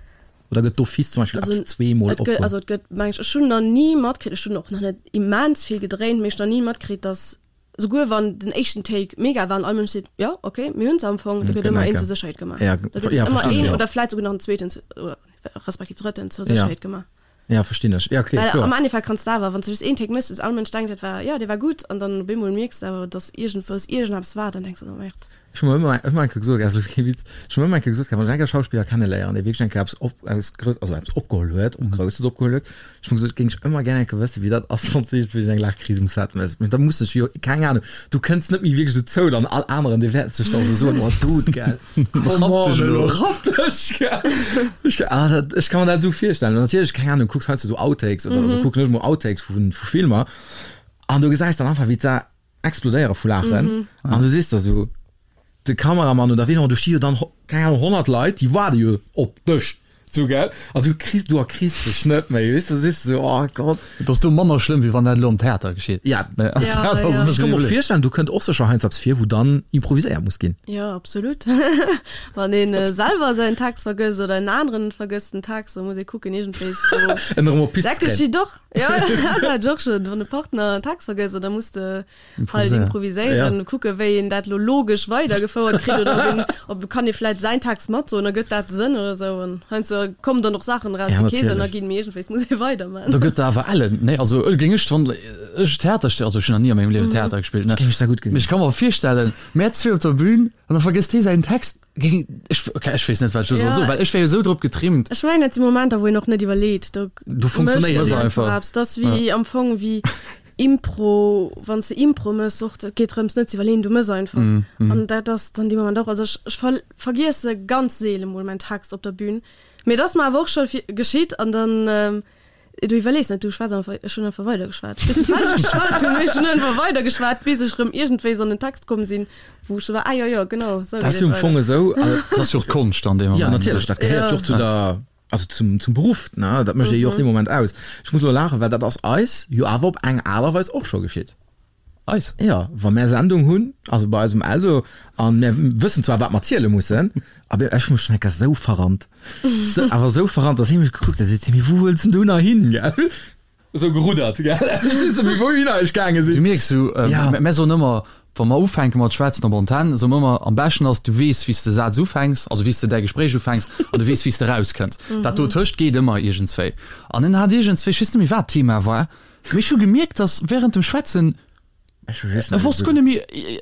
Oder gëtt d'office zum Beispill eppes zweemol opgeholl? Also et gëtt, meng ech, ech hunn nach ni matkritt, ech hunn och nach net immens vill gedréint, mee ech hunn nach ni matkritt, dass souguer wann den éischten Take mega war an all Mënsch seet, jo ok, mir hunn se am Fong, da gëtt ëmmer een zur Sécherheet gemaach. Da gëtt ëmmer een oder vläit souguer nach en zweeten oder respektiv drëtten zur Sécherheet gemaach. Ja, verstinn ech. Ja, okay, Well kloer. am Endeffekt kanns de awer, wann s de just een Take méchs, all Mënsch denkt, dat war, jo, dee war gutt, an dann op eemol mierks de awer, dass iergendwous iergendeppes war, dann denks de esou, Merde. Ech hu mer ëmmer, ech hu mer eng Kéier gesot, also kee Witz, ech hu mer ëmmer eng Kéier gesot, wann ech eng Kéier Schauspiller kenneléieren, dee wierklech eng Kéier eppes op, eppes Grouss, also eppes opgeholl huet, och Grousses opgeholl huet, ech hu mer gesot, géing ech ëmmer gär eng Kéier wëssen, wéi dat ass, wann s de iergendwéi eng Laachkris um Set méchs. Mee da muss ech jo, keng Ahnung, du kënns net méi wierklech dozou, dann all aneren, dee wäert sech da sou soen, oh Dude, gell. Rapp dech elo. Rapp dech, gell. Ech, ah, dat, ech kann mer dat esou virstellen. An natierlech, keng Ahnung, kucks heiansdo esou Outtakes oder esou, kucken ech mol Outtakes vu, vu Filmer an du gesäis dann einfach, wéi d'Sa explodéiere vu Laachen an du sees der esou, de Kameramann oder ween och, do sti jo dann, keng Ahnung, 100 Leit, déi waarde jo op dech. Sou gell? An du kriss, du erkriss dech net méi, weess de, sees de sou, oh Gott. Et ass do manner schlëmm, wéi wann dat elo am Theater geschitt. Ja, am Theater ass et e bësse méi. Ech ka mer och virstellen, do kënnt och sécher heiansdo eppes vir, wou dann improviséiert muss ginn. Jo, absolut. Wann ee selwer säin Text vergësst oder en aneren vergësst den Text, da muss ee kucken, iergendwéis do. En erëm op d'Pist ze kréien. Dat geschitt och, jo, dat hat ech och schonn, wann e Partner en Text vergësst, da muss de halt improviséieren, ja. kucke wéi een dat lo logesch weidergefouert kritt oder ob een, ob kann ee vläit säin Text matsoen, da gëtt dat Sënn oder sou an heiansdo kommen dann och Saachen eraus, déi kee Sënn erginn, mee iergendwéis muss ee weiderman. Do gëtt awer ellen, nee, also géing ech, wann ech Theater, also ech hunn nach ni a mengem Liewen Theater gespillt, ne, Géing ech da gutt gesinn. Mee ech ka mer virstellen, mär zwee op der Bühn an da vergësst hee säin Text, géing ech, okay, ech weess net wat ech elo soll soen, well ech wär jo esou drop getrimmt. Ech mengen dat si Momenter wou een och net iwwerleet, do Do funktionéiert mécht een einfach eppes, dat ass wéi am Fong wéi Impro, wann s de Impro mëss och, dat geet drëms net ze iwwerleeën, du mëss einfach. An dat ass dann dee Moment och, also ech ech ver vergiesse ganz seele mol mäin Text op der Bühn, mee et ass mer awer och scho geschitt an dann, du iwwerlees net, du schwätz einfach, ech hunn einfach weidergeschwat, bis ech fäerdeg geschwat hunn, mee ech hunn einfach weidergeschwat, bis ech erëm iergendwéis an den Text komm sinn, wou ech sou war, ah jo jo, genau esou Dat geet ass jo et am Fong weider. esou, also. Dat ass jo och d'Konscht an deem Moment. Jo, natierlech, dat gehéiert jo och zu der. Also zum, zum Beruff, ne? Dat mécht ee jo och dee Moment aus. Ech muss elo laachen, well dat ass eis jo awer op eng Aart a Weis och scho geschitt. Eis? Jo, wa mär Sendung hunn, also bei eis um Eldo, a mär wëssen zwar, wat mer ziele mussen, awer ech hu mech schonn eng Kéier sou verrannt, sou, awer sou verrannt, dass hie mech gekuckt huet a seet, Mee wou wëlls denn du nach hin, gell? Esou geruddert, gell? Ech weess net méi, wouhinner ech gaange sinn. Du mierks sou, mär soen ëmmer, wa mer ufänke mat schwätzen op Antenn, soe mer ëmmer, am beschten ass, du weess, wéi s de Saz ufänks, also wéi s de däi Gespréich ufänks an du weess, wéi s de erauskënns. Dat dotëscht geet ëmmer iergendswéi. An en hat iergendswéi, ech weess net méi, wat d'Thema war, mee ech hu gemierkt, dass wärend dem Schwätzen. Ech weess net. E wosst guer net méi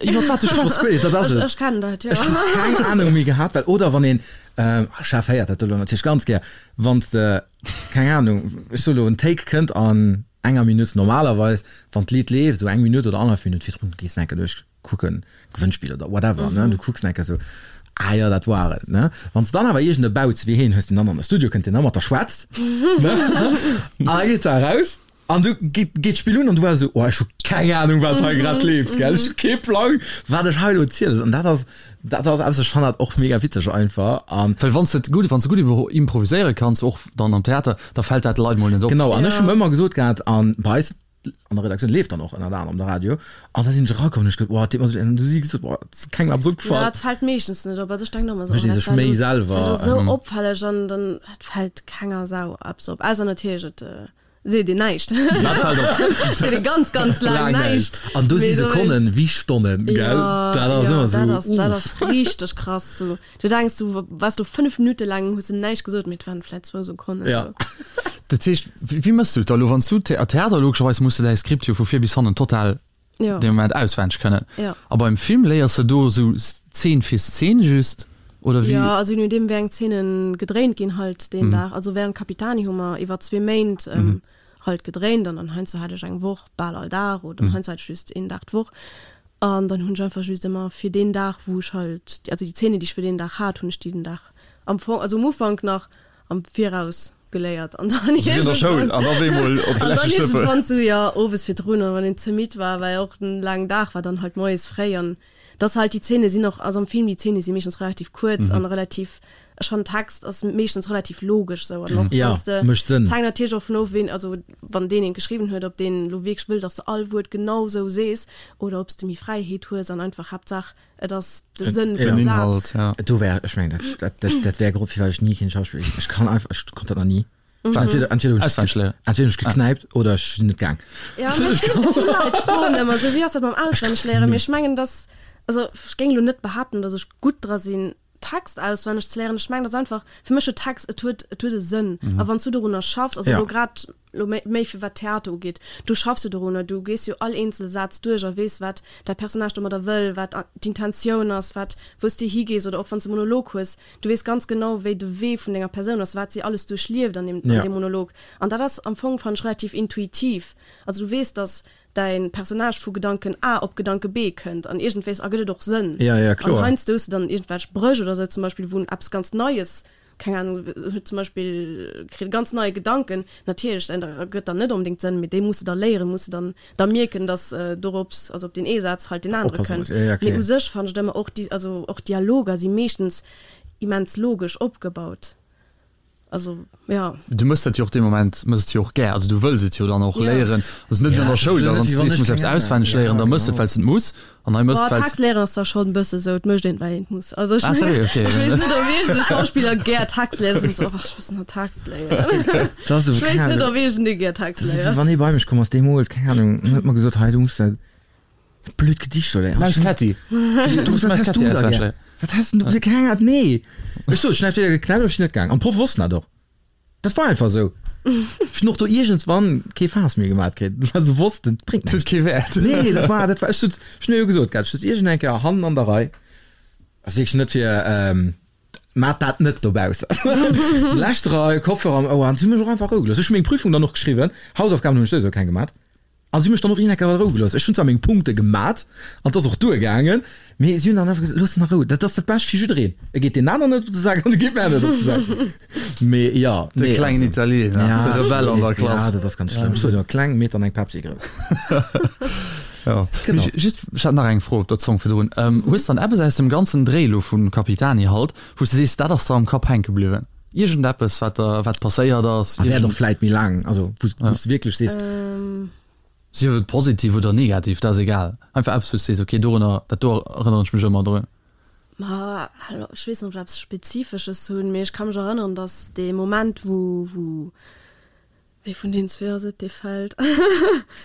iwwer wat ech Ech wosst, dat ass et. Ech kennen dat, jo. Ech hu keng Anung méi gehat, well oder wann een, Chef héiert dat elo natierlech ganz gär, wann s de, keng Anung, ech soe lo, en Take kënnt an enger Minutt, normalerweis, wann d'Lidd leeft, esou eng Minutt oder annerhallef Minutt virdrun, gees de enke duerch kucken, Gewënnspill oder whatever, ne, du kucks enke sou, ah jo, dat war et, ne. Wann s de dann awer iergend e Bauz wéi heen hues, deen dann an de Studio kënnt, deen da mat der schwätzt, ne, an da geet se eraus. An du geet geet d'Spill un an du war esou, oh ech hu keng Ahnung wat hei grad leeft, gell, ech hu kee Plang wat ech hei elo zielen soll. An dat ass dat ass eppes, ech fannen dat och mega witzeg einfach an. Well wann s de et gutt, wann s de gutt improviséiere kanns, och dann am Theater, da fält dat de Leit mol net op. Genau, an ech hu ëmmer gesot gehat, an bei eis an der Redaktioun leeft dann och ënnert anerem de Radio, an da sinn ech erakomm an hu ech gesot, oh et deet mer esou leed, an du hu si gesot, oh et ass kengem eppes opgefall. Jo, et fält meeschtens net op, also ech denken och ëmmer esou, Mécht oh ee dat sech war méi elo, dat selwer. war elo esou opfälleg an dann, et fält kenger Sau eppes op, ausser natierlech et Seet een näischt. Dat fält op. Seet ee ganz, ganz laang näischt. An do si Sekonnen wéi Stonnen, gell? Dat ass ëmmer esou. Dat ass, dat ass richteg krass. Sou, du denks, du waars lo 5 Minutte laang, hues de näischt gesot, mee et waren vläit zwou Sekonnen. Ja. Dat heescht, wéi méchs du et da lo, wann s du Theater, logescherweis muss de däi Skript jo vu vir bis hannen total ja. dee Moment auswenneg kënnen. Ja. A beim Film léiers de do esou Zeen fir Zeen just oder wéi? Ja, also je nodeem wéi eng Zeenen gedréint ginn halt deen Dag. Also während Capitani hu mer iwwer zwee Méint halt gedréint an dann heiansdo hat ech eng Woch bal all Dag oder heiansdo hat ech just een Dag d'Woch. An dann hunn ech einfach just ëmmer fir deen Dag wou ech halt, also déi Zeenen déi ech fir deen Dag hat, hunn ech déi den Dag am Fong, also um Ufank nach am Viraus geléiert an dann Also wéi an der Schoul an op eemol op de an dann leschte Schlëppel. iergendwann sou, jo, owes virdrun an wann een ze midd war, well och en laangen Dag war, dann halt moies fréi an dass halt déi Zeene sinn och, also am Film déi Zeene si meeschtens relativ kuerz an relativ, ech fannen Text ass meeschtens relativ logesch sou an och Ja, wanns de, mécht Sënn. et hänkt natierlech och vun of ween, also wann deen een geschriwwen huet, ob deen elo wierklech wëll, dass de all Wuert genau sou sees oder ob s de méi Fräiheet hues an einfach Haaptsaach Et ass de Sënn vum Inhalt, Saz. ja. Do wär, ech mengen, dat, dat, dat wär Grond, firwat ech ni keen Schauspiller ginn. Ech kann einfach, ech konnt dat nach ni. Entweder, entweder hunn ech, Auswenneg léieren. entweder hunn ech geknäipt oder ech sinn net gaang. Ja, mee vill, vill Leit froen ëmmer esou, wéi ass dat mam Auswennegléieren? Mee ech mengen, dass, also ech géing elo net behaapten, dass ech gutt dra sinn, Text auswenneg ze léieren. Ech mengen, dass einfach, fir mech huet Text, et huet, et huet e Sënn. A wann s du dorunner schaffs, also Ja. elo grad elo méi, méi fir wat Theater ugeet, du schaffs jo dorunner, du gees jo all eenzel Saz duerch a weess, wat däi Personnage domadder wëll, wat d'Intentioun ass, wat, wou s de higees oder och wann s de e Monolog hues, du weess ganz genau, wéi de Wee vun denger Persoun ass, wat si alles duerchlieft an deem, an Ja. deem Monolog. An dat ass am Fong, fannen ech, relativ intuitiv. Also du weess, dass däi Personnage vu Gedanken A op Gedanke B kënnt an iergendwéis ergëtt et och Sënn. Ja, ja, kloer. An heiansdo hues de dann iergendwelch Bréch oder sou zum Beispill, wou eppes ganz Neies, keng Ahnung, huet zum Beispill, kritt e ganz neie Gedanken, natierlech, dat ergëtt dann net onbedéngt Sënn, mee dee muss de da léieren, muss de dann da mierken, dass dorops, also op deen ee Saz halt deen anere Oppasse kënnt. muss, ja, ja, Mee kloer. u sech fannen ech et ëmmer och, déi, also och Dialoger si meeschtens immens logesch opgebaut. Also, ja. Du mëss dat jo och dee Moment, mëss et jo och gär, also du wëlls et jo dann och léieren. Also net wéi an der Schoul, da wann s du sees, du muss eppes auswenneg léieren, da mëss et, well s et muss. An hei mëss et, well s. Text léieren ass zwar schonn e bësse sou, et mécht een et, well een et muss. Also ech Ah, mengen, sérieux? Okay. ech weess net, ob iergend e Schauspiller gär Text léiert, ass ëmmer sou, oh, ech muss nach Text léieren. Dat ass Ech keng weess net, Ahnung. ob iergendee gär Text Dat ass wéi léiert. wann ee bei mech komm ass deemools, keng Ahnung, en huet mer gesot, hei du muss dat blöd Gedicht do léieren. Maus Ketti. Du muss wat Maus häss Ketti du da auswenneg gär? léieren. Wat häss du, keng Ahnung, nee. Ech sot, ech hunn entweder geknäppt oder ech sinn net gaang. An d'Proffe wossten dat och. Dat war einfach esou. Ech hunn och do iergendswann kee Faass méi gemat kritt, well se wossten, et bréngt Et huet näischt. kee Wäert. Nee, dat war, dat war, ech sot, ech hunn jo gesot gehat, ech sot iergend eng Kéier hannen an der Rei, ass wierklech net fir, mat dat net dobaussen. Lescht Rei, Kopfhörer am Ouer, an si hu mech och einfach a Rou gelooss. Ech hu meng Prüfung dann och geschriwwen, Hausaufgaben hunn ech souwisou keng gemat. A si hu mech dann och een Ecker a Rou gelooss. Ech hunn zwar meng Punkte gemat an et ass och duergaangen, mee si hunn dann einfach gesot, Looss en a Rou, dat ass dat Bescht fir jiddereen. E geet deen aneren net op de Sak an e geet mär net op de Sak. Mee jo, De nee, klengen also, Italiener, ja, de Rebell an der Klass. Ja, dat ass ganz schlëmm. Ech sot jo, kleng, mee dann eng Pepsi grouss. Jo. Genau. Mee just, ech hat nach eng Fro op der Zong virdrun. Hues dann eppes aus dem ganzen Dréi elo vu Capitani halt, wou s de sees, dat ass der am Kapp hänke bliwwen? Iergendeppes, wat der, wat passéiert ass? A wäert och vläit méi laang, also wou s de wierklech sees. Sief et positiv oder negativ, dat ass egal. Einfach eppes, wou s de sees, okay, dorunner, dat do erënneren ech mech ëmmer drun. Ma ech weess net, ob ech eppes Spezifesches hunn, mee ech ka mech erënneren, datt dee Moment, wou, wou Wee vun den zwee ass et, dee fält?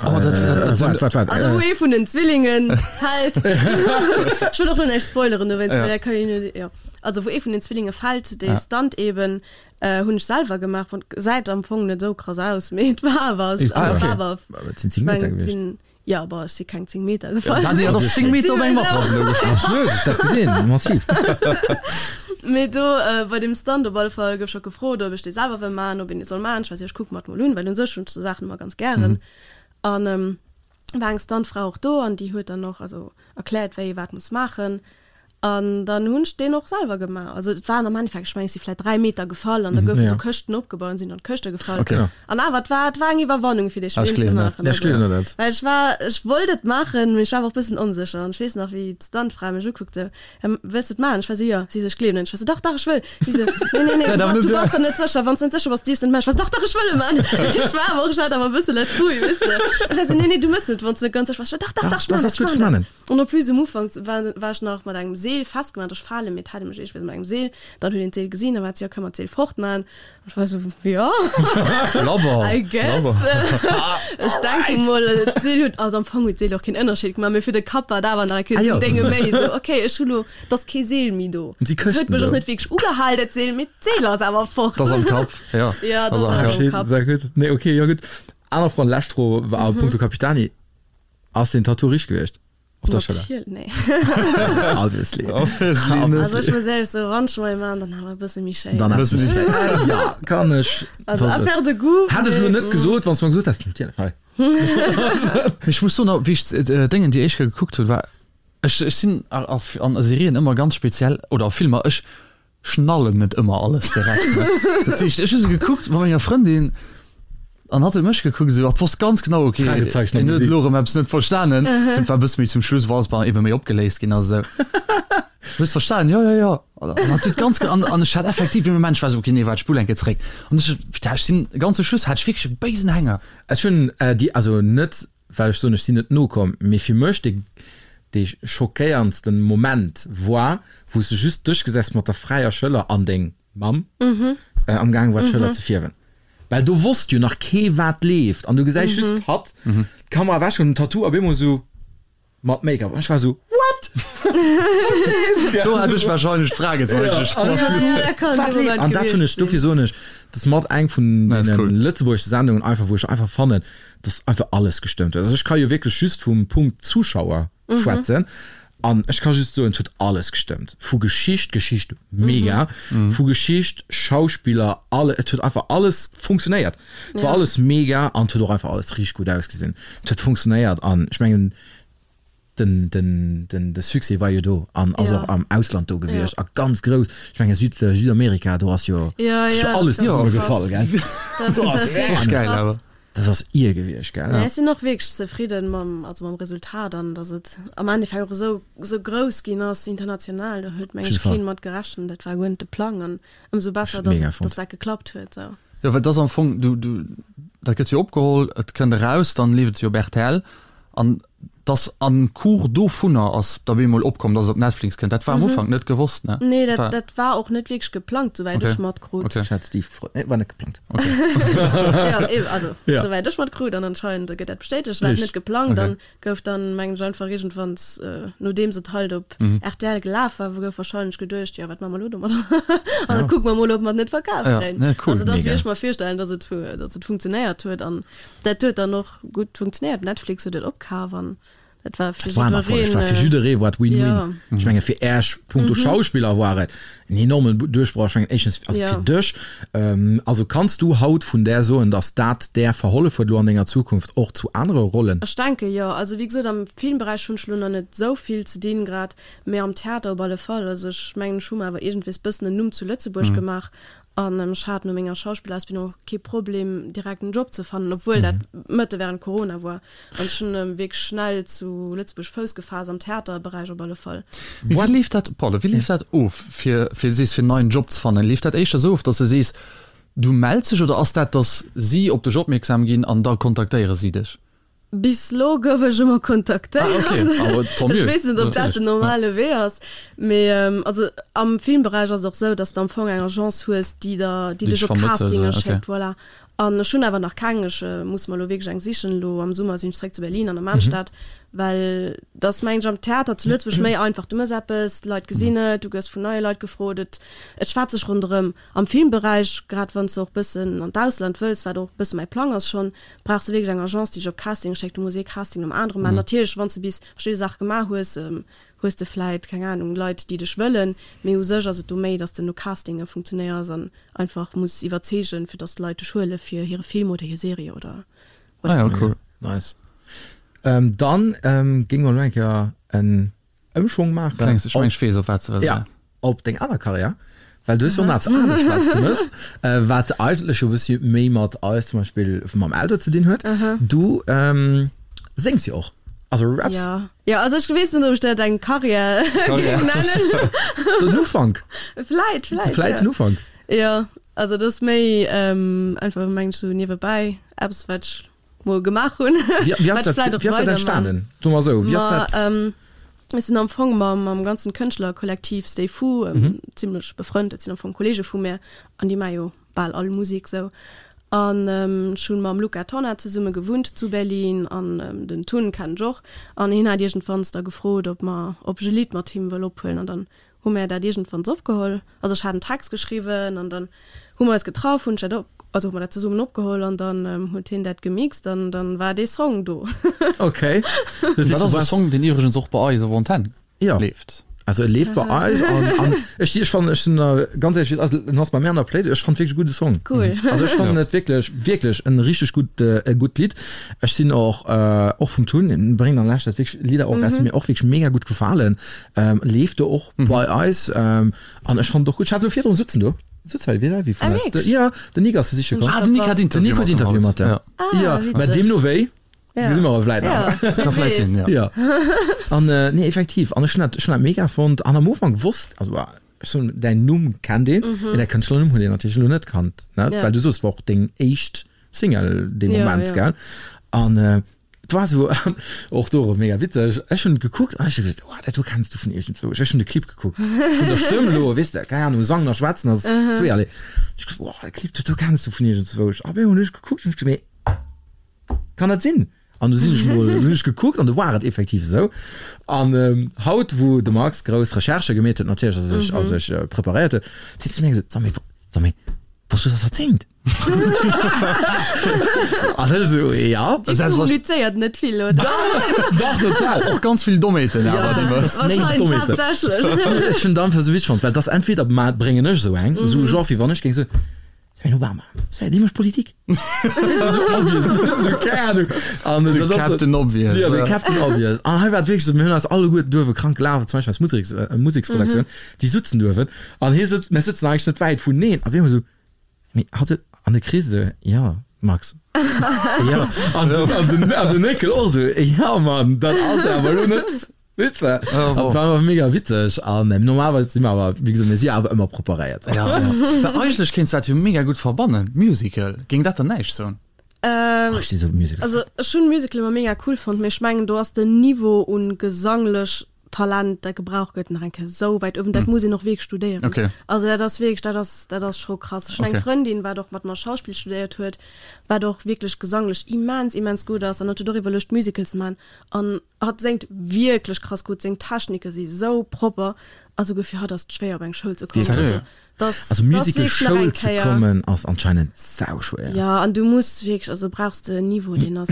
Oh, dat, dat, dat, Waart, waart, waart. Also wou ee vun den Zwillingen fält. Ech wëll och lo näischt spoileren dowéinst, well da kann een jo, jo. Also wou ee vun den Zwillinge fält, dee Stunt eben, hunn ech selwer gemaach. Bon, gesäit am Fong net esou krass aus, mee et war awer, Ah, et okay. war awer, Et sinn ech 10 Meter mengen, et gewiescht. sinn. Jo, bon, ech si keng 10 Meter gefall. Ja, nee, dat ass 10 Meter op eng Matrass elo gefall. Absolut, ech dat gesinn, massiv. Mee do bei deem Stunt op alle Fall gouf scho gefrot, ob ech dee selwer wëll maachen, ob een dee soll maachen. Ech war esou, ech kucke mer et mol un, well un sech hunn ech sou Saachen ëmmer ganz gären. An war eng Stuntfra och do an déi huet dann och also erkläert, wéi ee wat muss maachen. An dann hunn ech deen och selwer gemaach. Also et waren am Endeffekt, ech mengen, ech si vläicht 3 Meter gefall an da goufen esou Këschten opgebaut an sinn an d'Këschte gefall. An awer, et war, et war eng Iwwerwannung fir dee Spill ze maachen. Ech gleewen der dat. Well ech war, ech wollt et maachen, mee ech war awer och e bëssen onsécher. An ech weess nach, wéi d'Stuntfra mech ukuckt esou, Wëlls de et maachen? Ech war esou, Jo. Si esou, Ech gleewen net. Ech war esou, Dach, dach, ech wëll. Si esou, Nee, nee, nee, du, du bass der net sécher. Wann s de net sécher bass, dierfs de net maachen. Ech war esou, Dach, dach, ech wëll e maachen. Ech war awer och, ech hat awer e bësse Letz-Rouille, weess de. Ech war esou, Nee, nee, du méchs net, wann s de net ganz sécher bass. Ech war, Dach, dach, dach, ech maachen dat, ech maachen dat. An en plus um Ufank war war ech nach mat engem Seel festgemaach, ech fale mee et hat ee mech iergendwéi mat engem Seel, dann huet een d'Seel gesinn, da war et jo, kënne mer d'Seel fortman? An ech war esou, jo, Labber, I guess. labber. Ech denke mol, d'Seel huet, also am Fong huet d'Seel och keen Ënnerscheed gemaach, mee fir de Kapp war et awer nach eng Kéier Ah esou jo. en Dénge méi, esou, okay, ech hu lo, et ass kee Seel méi do. Et si Et huet Këschten mech och do. net wierklech ugehal, dat Seel, mee d'Seel ass awer fort. 't ass am Kapp, jo, Ja, 't ass dat am ass Kapp. am Kapp. Sehr gutt. Nee, okay, jo gutt. Aner Fro an lescht Fro a punkto Capitani. Ass den Tattoo richteg gewiescht? Op der Schëller? Natierlech, nee. Obviously. Obviously net. Also ech muss éierlech soen, wann ech mol ee maachen, dann awer e bësse méi schéin. Dann awer e bësse méi schéin. Ja, kann ech. Also affaire de goût. Hätt ech elo net gesot, wann s de mer gesot häss, natierlech, hei. Mee ech muss soen, wéi ech d'Déngen déi éischt Kéier gekuckt hunn, war ech, ech sinn a Serien ëmmer ganz speziell, oder a Filmer, ech schnallen net ëmmer alles direkt ne. Dat heescht ech hu se gekuckt mat menger Frëndin an hatt huet mech gekuckt esou hatt wosst ganz genau okay Fragezeichen am en huet Gesicht. elo erëm eppes net verstanen. Et war e bësse méi zum Schluss wou alles bei ebe méi opgeléist ginn ass esou. Hues verstanen? Jo jo jo. An hatt huet ganz an an ech hat effektiv dee Moment ech war esou okay nee waart spull eng Kéier zeréck an ech putain ech sinn ganz zum Schluss hat ech wierklech e béisen Hänger. Ech hunn déi also net well ech soen, ech sinn net nokomm, mee fir mech dee dee schockéierndsten Moment war, wou s de just dech gesäis mat der fräier Schëller an deng Mamm am gaange war d'Schëller ze fierwen, well do wosst jo nach kee wat leeft an du gesäis just hatt, d'Kamera ewech an den Tattoo op eemol esou mat Make-up an ech war esou, what? Do hat ech wahrscheinlech d'Fragezeichen gesprach. Wat leeft? An dat hunn ech, dofir soen ech, dat ass mat eng vun deene lëtzebuergesche Sendungen einfach, wou ech einfach fannen, dass einfach alles gestëmmt huet. Also ech ka jo wierklech just vum Punkt Zuschauer schwätzen an ech ka just soen, et huet alles gestëmmt. Vu Geschicht, Geschicht mega, vu Geschicht, Schauspiller, alle, et huet einfach alles funktionéiert. Et war alles mega an et huet och einfach alles richteg gutt ausgesinn. Et huet funktionéiert an ech mengen, Den, den, den, de Succès war jo do an ass och am Ausland do gewiescht a ganz grouss. Ech menge Süd, Südamerika, do ass jo, Ja, ass jo ja, alles das zesumme ist gefall, krass. gell? Das, Do das ass ist wirklich geil, krass. awer. Das ass ier gewiescht, gell? Nee, ech sinn och wierklech zefridden mam, also mam Resultat an dass et am Endeffekt och esou, esou grouss ginn ass international. Do huet meng ech Auf jeden Fall. keen mat gerechent. Dat war guer net de Plang an ëmsou besser, Ech dass mega et, fonnt. dass dat geklappt huet esou. Jo, well et ass am Fong, du, du, dat gëtt jo opgeholl, et kënnt eraus, dann leeft et jo op rtl an dass am Cours dovunner ass da bemol opkomm, dass et op Netflix kënnt. Dat war am Ufank net gewosst, ne? Nee, dat, War- dat war och net wierklech geplangt, souwäit Okay. ech matkrut. Okay. Ech hat Steve gefrot. Nee, war net geplangt. Ja, eben, also, Ja. souwäit ech matkrut an anscheinend gëtt dat bestätegt, war et Richtig. net geplangt. Okay. Dann gouf dann, mengen ech, einfach iergendwanns, nodeems et halt op rtl gelaf war, gouf wahrscheinlech geduecht, jo, wat maache mer elo domadder? An da kucke mer mol, ob mer et net verkaf Ja, kréien. ne, cool. Also, dat ass, wéi Mega. ech mer virstellen, dass et, dass et funktionéiert huet. An dat huet dann och gutt funktionéiert. Netflix huet et opkaf an dat war fir Dat war en Erfolleg, jiddereen. war fir jidderee war et Win-Win. Ja. Ech menge fir Äech punkto Schauspiller war et en enormen Duerchbroch. Ech mengen éischtens also Ja. fir dech. Also kanns du haut vun där soen, datt dat där verhollef huet elo an denger Zukunft och zu anere Rollen? Ech denke jo. Also wéi gesot, am Filmberäich hunn ech elo nach net esou vill ze dinn grad, mee am Theater op alle Fall. Also ech mengen, ech hu mer awer iergendwees bëssen en Numm zu Lëtzebuerg gemaach An ech hat no menger Schauspillausbildung och kee Problem, direkt en Job ze fannen, obwuel dat mëtte während Corona war. An ech hunn wierklech schnell zu Lëtzebuerg Fouss gefaasst, am Theaterberäich op alle Fall. Mee wéi leeft dat, pardon, wéi leeft dat of, fir, fir sees, fir en neien Job ze fannen? Leeft dat éischter esou of, dass de sees, du mells dech, oder ass dat, dass si op dech opmierksam ginn an da kontaktéiere si dech? Bis lo gouf ech ëmmer kontaktéiert. Ah, okay. Aber tant mieux. Ech weess net, ob dat den normale Wee ass. Mee also am Filmberäich ass et och esou, dass de am Fong eng Agence hues, déi der, déi dech op Castinge schéckt, voilà. An ech hunn awer nach keng, ech muss mer elo wierklech eng sichen. Elo am Summer sinn ech zeréck zu Berlin an der Maanstad, well et ass mengen ech am Theater zu Lëtzebuerg méi einfach. Du mëss eppes, d'Leit gesinn et, du gëss vun neie Leit gefrot, et et schwätzt sech ronderëm. Am Filmberäich, grad wann s de och bëssen an d'Ausland wëlls, wat och bësse mäi Plang ass schonn, brauchs de wierklech eng Agence, déi dech op Castinge schéckt. Du muss ee Casting nom anere maachen. Natierlech, wann s de bis verschidde Saache gemaach hues, hues de vläit, keng Anung, Leit, déi dech wëllen, mee u sech ass et do méi, datt s de no Castinge funktionéiers an einfach muss iwwerzeegen, fir dass d'Leit dech huele fir hire Film oder hir Serie oder Ah ja, cool. Nice. Ähm, dann ähm, géinge mer elo eng Kéier en Ëmschwong maachen. Klengs, ech meng, ech weess, op wat s de wëlls Ja, eraus. op deng aner Karriär, well du hues jo och nach eppes anescht, wat s de mëss, äh, wat eigentlech jo e bëssi méi mat eis zum Beispill mam Eldo ze dinn huet. Du ähm, séngs jo och. Also Raps. Ja. Ja, also ech weess net, ob ech dat eng Karriär géing nennen. Den Ufank. Vläit, vläit. Vläit ja. den Ufank. Ja, also dat ass méi ähm, einfach mengt sou niewebäi eppes wat ech mol gemaach hunn. Wéi, wéi ass Wat ech dat, vläit och wéi ass dat weiderman. entstanen? So mer sou, wéi ass Ma dat? ähm, ech sinn am Fong mam, mam ganzen Kënschtlerkollektiv Stay Fu ähm, zimmlech befrënnt. Dat sinn am Fong Kollege vu mär an déi maache jo bal all Musek sou. An ech hunn mam Luca Tonnar zesumme gewunnt zu Berlin an den Tun kennen ech och. An hien hat iergendwanns da gefrot, ob mer, ob ech e Lidd mat him wëll ophuelen an dann hu mär dat iergendwanns opgeholl. Also ech hat en Text geschriwwen an dann hu mer eis getraff, hunn ech dat op, also hu mer dat zesummen opgeholl an dann huet hien dat gemixt an dann war dee Song do. Okay. Dat ass e Song, deen iwwregens och bei eis op Antenn Ja. leeft. Also e leeft bei eis an, an ech, ech fannen, ech sinn da ganz éierlech, also en ass bei mir an der Playlist, ech fannen wierklech e gudde Song. Cool. Also ech fannen et wierklech, wierklech en richteg gutt, e gutt Lidd. Ech sinn och, och vum Tun, en bréngt an leschter Zäit wierklech Lidder och eraus, déi mir och wierklech mega gutt gefalen. Leeft do och bei eis an ech fannen et och gutt. Ech hat elo virdrun sutzen do, sutz hei vis-à-vis vun Ah, eis. wierklech? Jo, den Nick ass se siche komm. Ah, den Nick hat Den Interview Nick huet mat dem Interview haut. mat dem. Ja. Ah, Jo, mä witzeg. deemno wéi. Ja. Gesi mer awer vläit nach. Ja, Ka vläit sinn, ja. Ja. An äh, nee, effektiv. An ech hunn dat, ech hunn dat mega fonnt. An am Ufank wosst, also ah, ech soen, däin Numm kennt een, mee däi Kënschtlernumm huet een natierlech elo net kannt, ne? Mhm. Ja. Well du soos, war och deng éischt Single dee Ja, Moment, ja. gell? An äh, et war esou, och do erëm mega witzeg, ech hunn gekuckt an ech hu gesot, oh, dat do kenns du vun iergendwou. Ech hunn de Clip gekuckt, vun der Stëmm elo, weess de, keng Ahnung, Sangen a Schwätzen ass zweeërlee. Ech gesot, oh, de Clip, dat do kenns du vun iergendzwou. A op eemol hunn ech gekuckt an ech gesot, mee Kann dat sinn? An du sinn ech mol, hunn ech gekuckt an du war et effektiv esou. An haut, wou de Max grouss Recherchë gemeet huet natierlech a sech a sech preparéiert huet, seet zu mir gesot, Sag méi, sag méi, wosst du, dass hatt singt? An ech esou, ja. Dir kommunizéiert net vill, oder? Dach, total. Och ganz vill Dommheeten awer, déi mer. Wahrscheinlech haaptsächlech. Ech hunn et einfach esou witzeg fonnt, well et ass entweder bréngen ech esou eng, esou genre wéi wann ech géing soen, Den Obama, sei dee mécht Politik. De Captain Obvious. Jo, de Captain Obvious. An hei war et wierklech esou, mir hunn eis alleguerten duerwe krank gelaf, zum Beispill eis Museks, Museksredaktioun, déi sutzen duerwen. An hie sëtzt, mir sëtzen eigentlech net wäit vuneen. A mir hu esou, mee hatt huet, an de Chris esou, jo, Max. Jo. An den, an den, an den Néckel och esou, jo, Mann, dat ass awer elo net. Weess de? Oh, wow. War awer mega witzeg an ähm, normalerweis si mer awer, wéi gesot, mir si awer ëmmer preparéiert. Ja, ja. Well eigentlech kéints du dat jo mega gutt verbannen, Musical. Géing dat der näischt soen? Ähm, Ach, ech si sou Musical. Also ech hunn Musical ëmmer mega cool fonnt, mee ech mengen do ass den Niveau un gesanglech Talent dat gebraucht gëtt nach eng Kéier sou wäit uewen. Dat muss een och wierklech studéieren. Okay. Also dat ass wierklech, dat ass, dat ass scho krass. Ech hunn eng Okay. Frëndin wat och mat mer Schauspill studéiert huet, wat och wierklech gesanglech immens, immens gutt ass an hat huet och iwwerluecht Musical ze man an Hatt séngt wierklech krass gutt, seng Technike si sou propper a souguer fir hatt ass et schwéier op eng Schoul ze kommen. Seriö? Also dass Also dass Musical wierklech nach Schoul eng ze Kéier. kommen ass anscheinend sauschwéier. Jo, an du muss wierklech, also brauchs de en Niveau deen ass,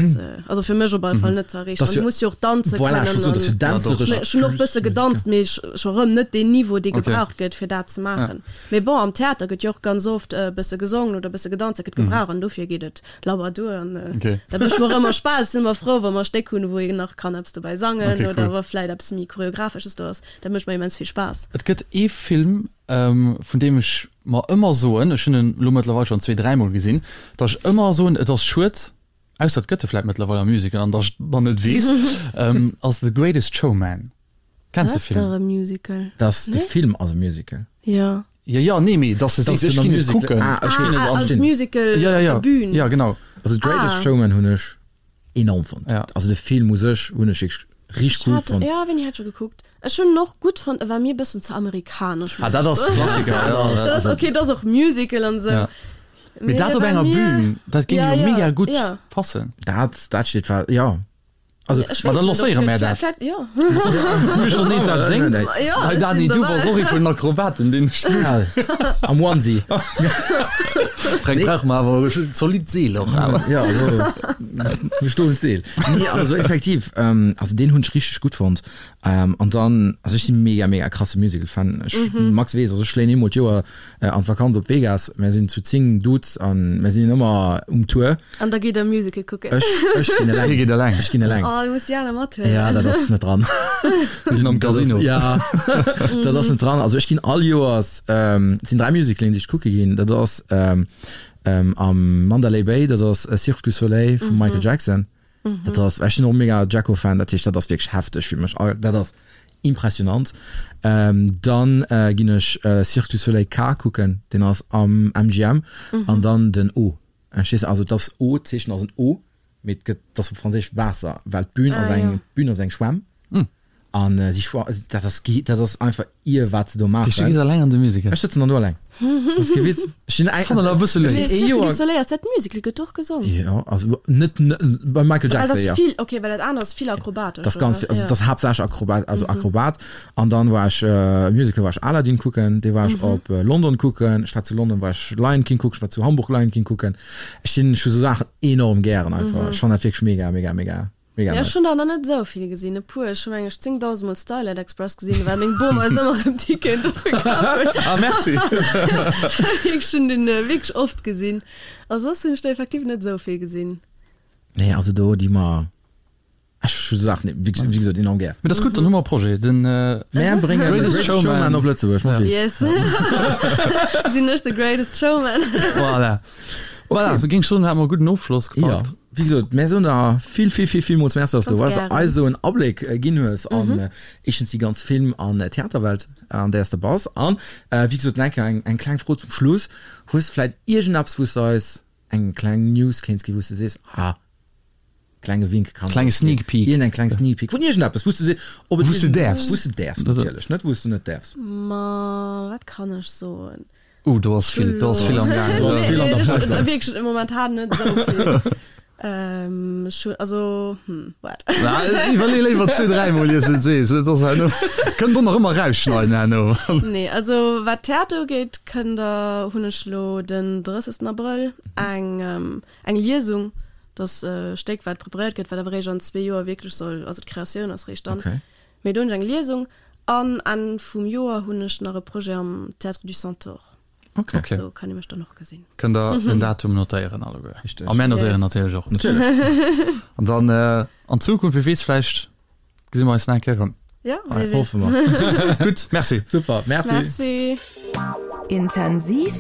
also fir mech op alle Fall net ze erreechen. Dass An du jo, muss jo och danze voilà, ech kënnen wollt soen, dass jo an dänzeresch ech hunn och plus bësse Musical. gedanzt, mee scho rëm net deen Niveau dee Okay. gebraucht gëtt fir dat ze maachen. Mee bon, am Theater gëtt jo och ganz oft e bësse gesongen oder e bësse gedanzt, dat gëtt gebraucht an dofir geet et Labber duer an Okay. dat mécht mer ëmmer Spaass. Ech sinn ëmmer frou, wa mer e Stéck hunn, wou een nach kann eppes dobäi sangen Okay, oder cool. wa vläit eppes méi Choreografesches do ass. Dat mécht mer immens vill Spaass. Et gëtt ee Film, vun deem ech mer ëmmer soen, ech hunn en elo mëttlerweil schonn zwee, dräimol gesinn, datt ech ëmmer soen, et ass schued, ausser et gëtt e vläit mëttlerweil am Musical an datt ech dann net weess, ass The Greatest Showman. Kenns de Dat ass Film? dach e Musical, Dass de nee? Film ass e Musical. Jo. Jo, jo, nee, mee dass de Dass sees, ech den am ginn et Musical- kucken. Ah, ech Ech ginn Ah, et an. als Musical Ja, ja, op ja. der Bühn. Ja, genau. Also The Greatest Ah. Showman hunn ech enorm fonnt. Ja. Also de Film u sech hunn ech wierklech richteg Ech cool hat, fonnt. ja, wéini hat ech e gekuckt? Ech hunn en och gutt fonnt, e war mir e bëssen ze amerikanesch, Ah, muss dat ech ass soen. Klassiker, ja. Dat ass, okay, dat ass och Musical an esou. Ja. Mee dat op enger Bühn, dat géing jo mega gutt passen. Dat, dat steet fest, jo. Also, Ma da lancéiere mär dat. Michel Neen dat séngt. Hei Dani, du bass och ee vun den Akrobaten, deen ech gutt. Am Onesie. Fränk, brauche mer awer e zolidd Seel och awer. Jo, also, e stoent Seel. Nee, also effektiv, also deen hunn ech richteg gutt fonnt. An dann, also ech si mega, mega krasse Musical-Fan. Ech, Max weess, also ech fléien eemol d'Joer an d'Vakanz op Vegas. Mär sinn zu 10 Dudes an mär sinn ëmmer um Tour. An da geet der Musical kucken. Ech, ech ginn eleng. Hie geet eleng. Ech ginn eleng. Oh, du muss déi aner mathuelen. Ja, dat ass net dran. Mir sinn am Casino. Ja, dat ass net dran. Also ech ginn all Joers, et sinn 3 Musicalen, déi ech kucke ginn. Dat ass am Mandalay Bay, dat ass Cirque du Soleil vum Michael Jackson. Dat ass, ech sinn och mega Jacko-Fan, dat heescht, dat ass wierklech hefteg fir mech. Dat ass impressionant. Dann ginn ech Cirque du Soleil K kucken, deen ass am MGM, an dann den O. Verstees de? Also et ass O, d'Zeechen ass en O, mee et gëtt, et ass op Franséisch Waasser, well d'Bün ass eng, d'Bün ass eng Schwämm. An si schwa, dat ass ge, dat ass einfach ir wat se do maachen. Du gees alleng an de Musical? Ech sëtzen dann do alleng. Dat ass kee Witz. Ech sinn eng. Fannen awer e bësse léif. Mee Cirque du Soleil ass dat Musical? Gëtt do och gesong? Jo, also net, net beim Michael Jackson, jo. Well dat ass vill, okay, well dat anert ass vill akrobatesch, Dat ass ganz vill, also dat ass haaptsächlech Akrobat, also Akrobat. An dann war ech, Musical war ech Aladdin kucken, dee war ech op London kucken. Ech war zu London war ech Lion King kucken, ech war zu Hamburg Lion King kucken. Ech sinn, ech hu sou Saachen enorm gären einfach. Ech fannen dat wierklech mega, mega, mega. Mega Ja, ech hunn der nach net esou vill gesinn, e puer. Ech hu meng ech 10.000 mol Starlight Express gesinn, well meng Bom eis ëmmer erëm Ticketen dofir kaf huet. Ah, merci. Ech hunn den wierklech oft gesinn. A soss hunn ech der effektiv net esou vill gesinn. Nee, also do di mer, ech hu sou Saachen wéi wéi gesot enorm gär. Mee dat ass gutt, dann hu mer e Projet, den Mär bréngen The Greatest Showman op Lëtzebuerg, Marie. Yes. Sinn ech The Greatest Showman. Voilà. Voilà, géing ech soen, hate mer e gudden Ofschloss gepackt. Jo, wéi gesot, mär soen der vill, vill, vill, villmools Merci, dass du eis esou en Abléck ginn hues an éischtens déi ganz Film an Theaterwelt, an där s de bass. An wéi gesot, nach eng Kéier eng kleng Fro zum Schluss, Hues de vläicht iergendeppes, wou s de eis eng kleng News kéints ginn, wou s de sees, ah, klenge Wink kann Klenge Sneak Peek. Iergendeng kleng Sneak Peek vun iergendeppes, wou s de sees, ob et Wou s de däerfs. Wou s de däerfs, natierlech, net wou s de net däerfs. Ma wat kann ech soen? Uh, do ass vill, do ass vill am Gaang. Do ass vill an der Pipeline. Wierklech momentan net esou vill. Ech hunn, also, hm, waart. Iwwerlee léiwer zwee, dräimol ier s de et sees. Et ass herno, kënnt och nach ëmmer rausschneiden herno. Nee, also wat Theater ugeet, kënnt der, hunn ech elo den 30. Abrëll eng, eng Liesung, dat ass e Stéck wat preparéiert gëtt, wat awer eréischt an zwee Joer wierklech soll, also d'Kreatioun ass réischt dann. Mee do hunn ech eng Liesung an Enn vum Joer hunn ech nach e Projet am Théâtre du Centaure. Okay. Okay. Do kann ee mech dann och gesinn. Kënnt der den Datum notéieren alleguer. Richteg. A mär notéieren natierlech och. Natierlech. An dann an Zukunft, wie weess, vläicht gesi mer eis nach eng Kéier erëm. Ja, wie weess. Hoffe mer. Gutt, merci. Super, merci. Merci. Intensiv,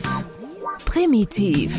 primitiv.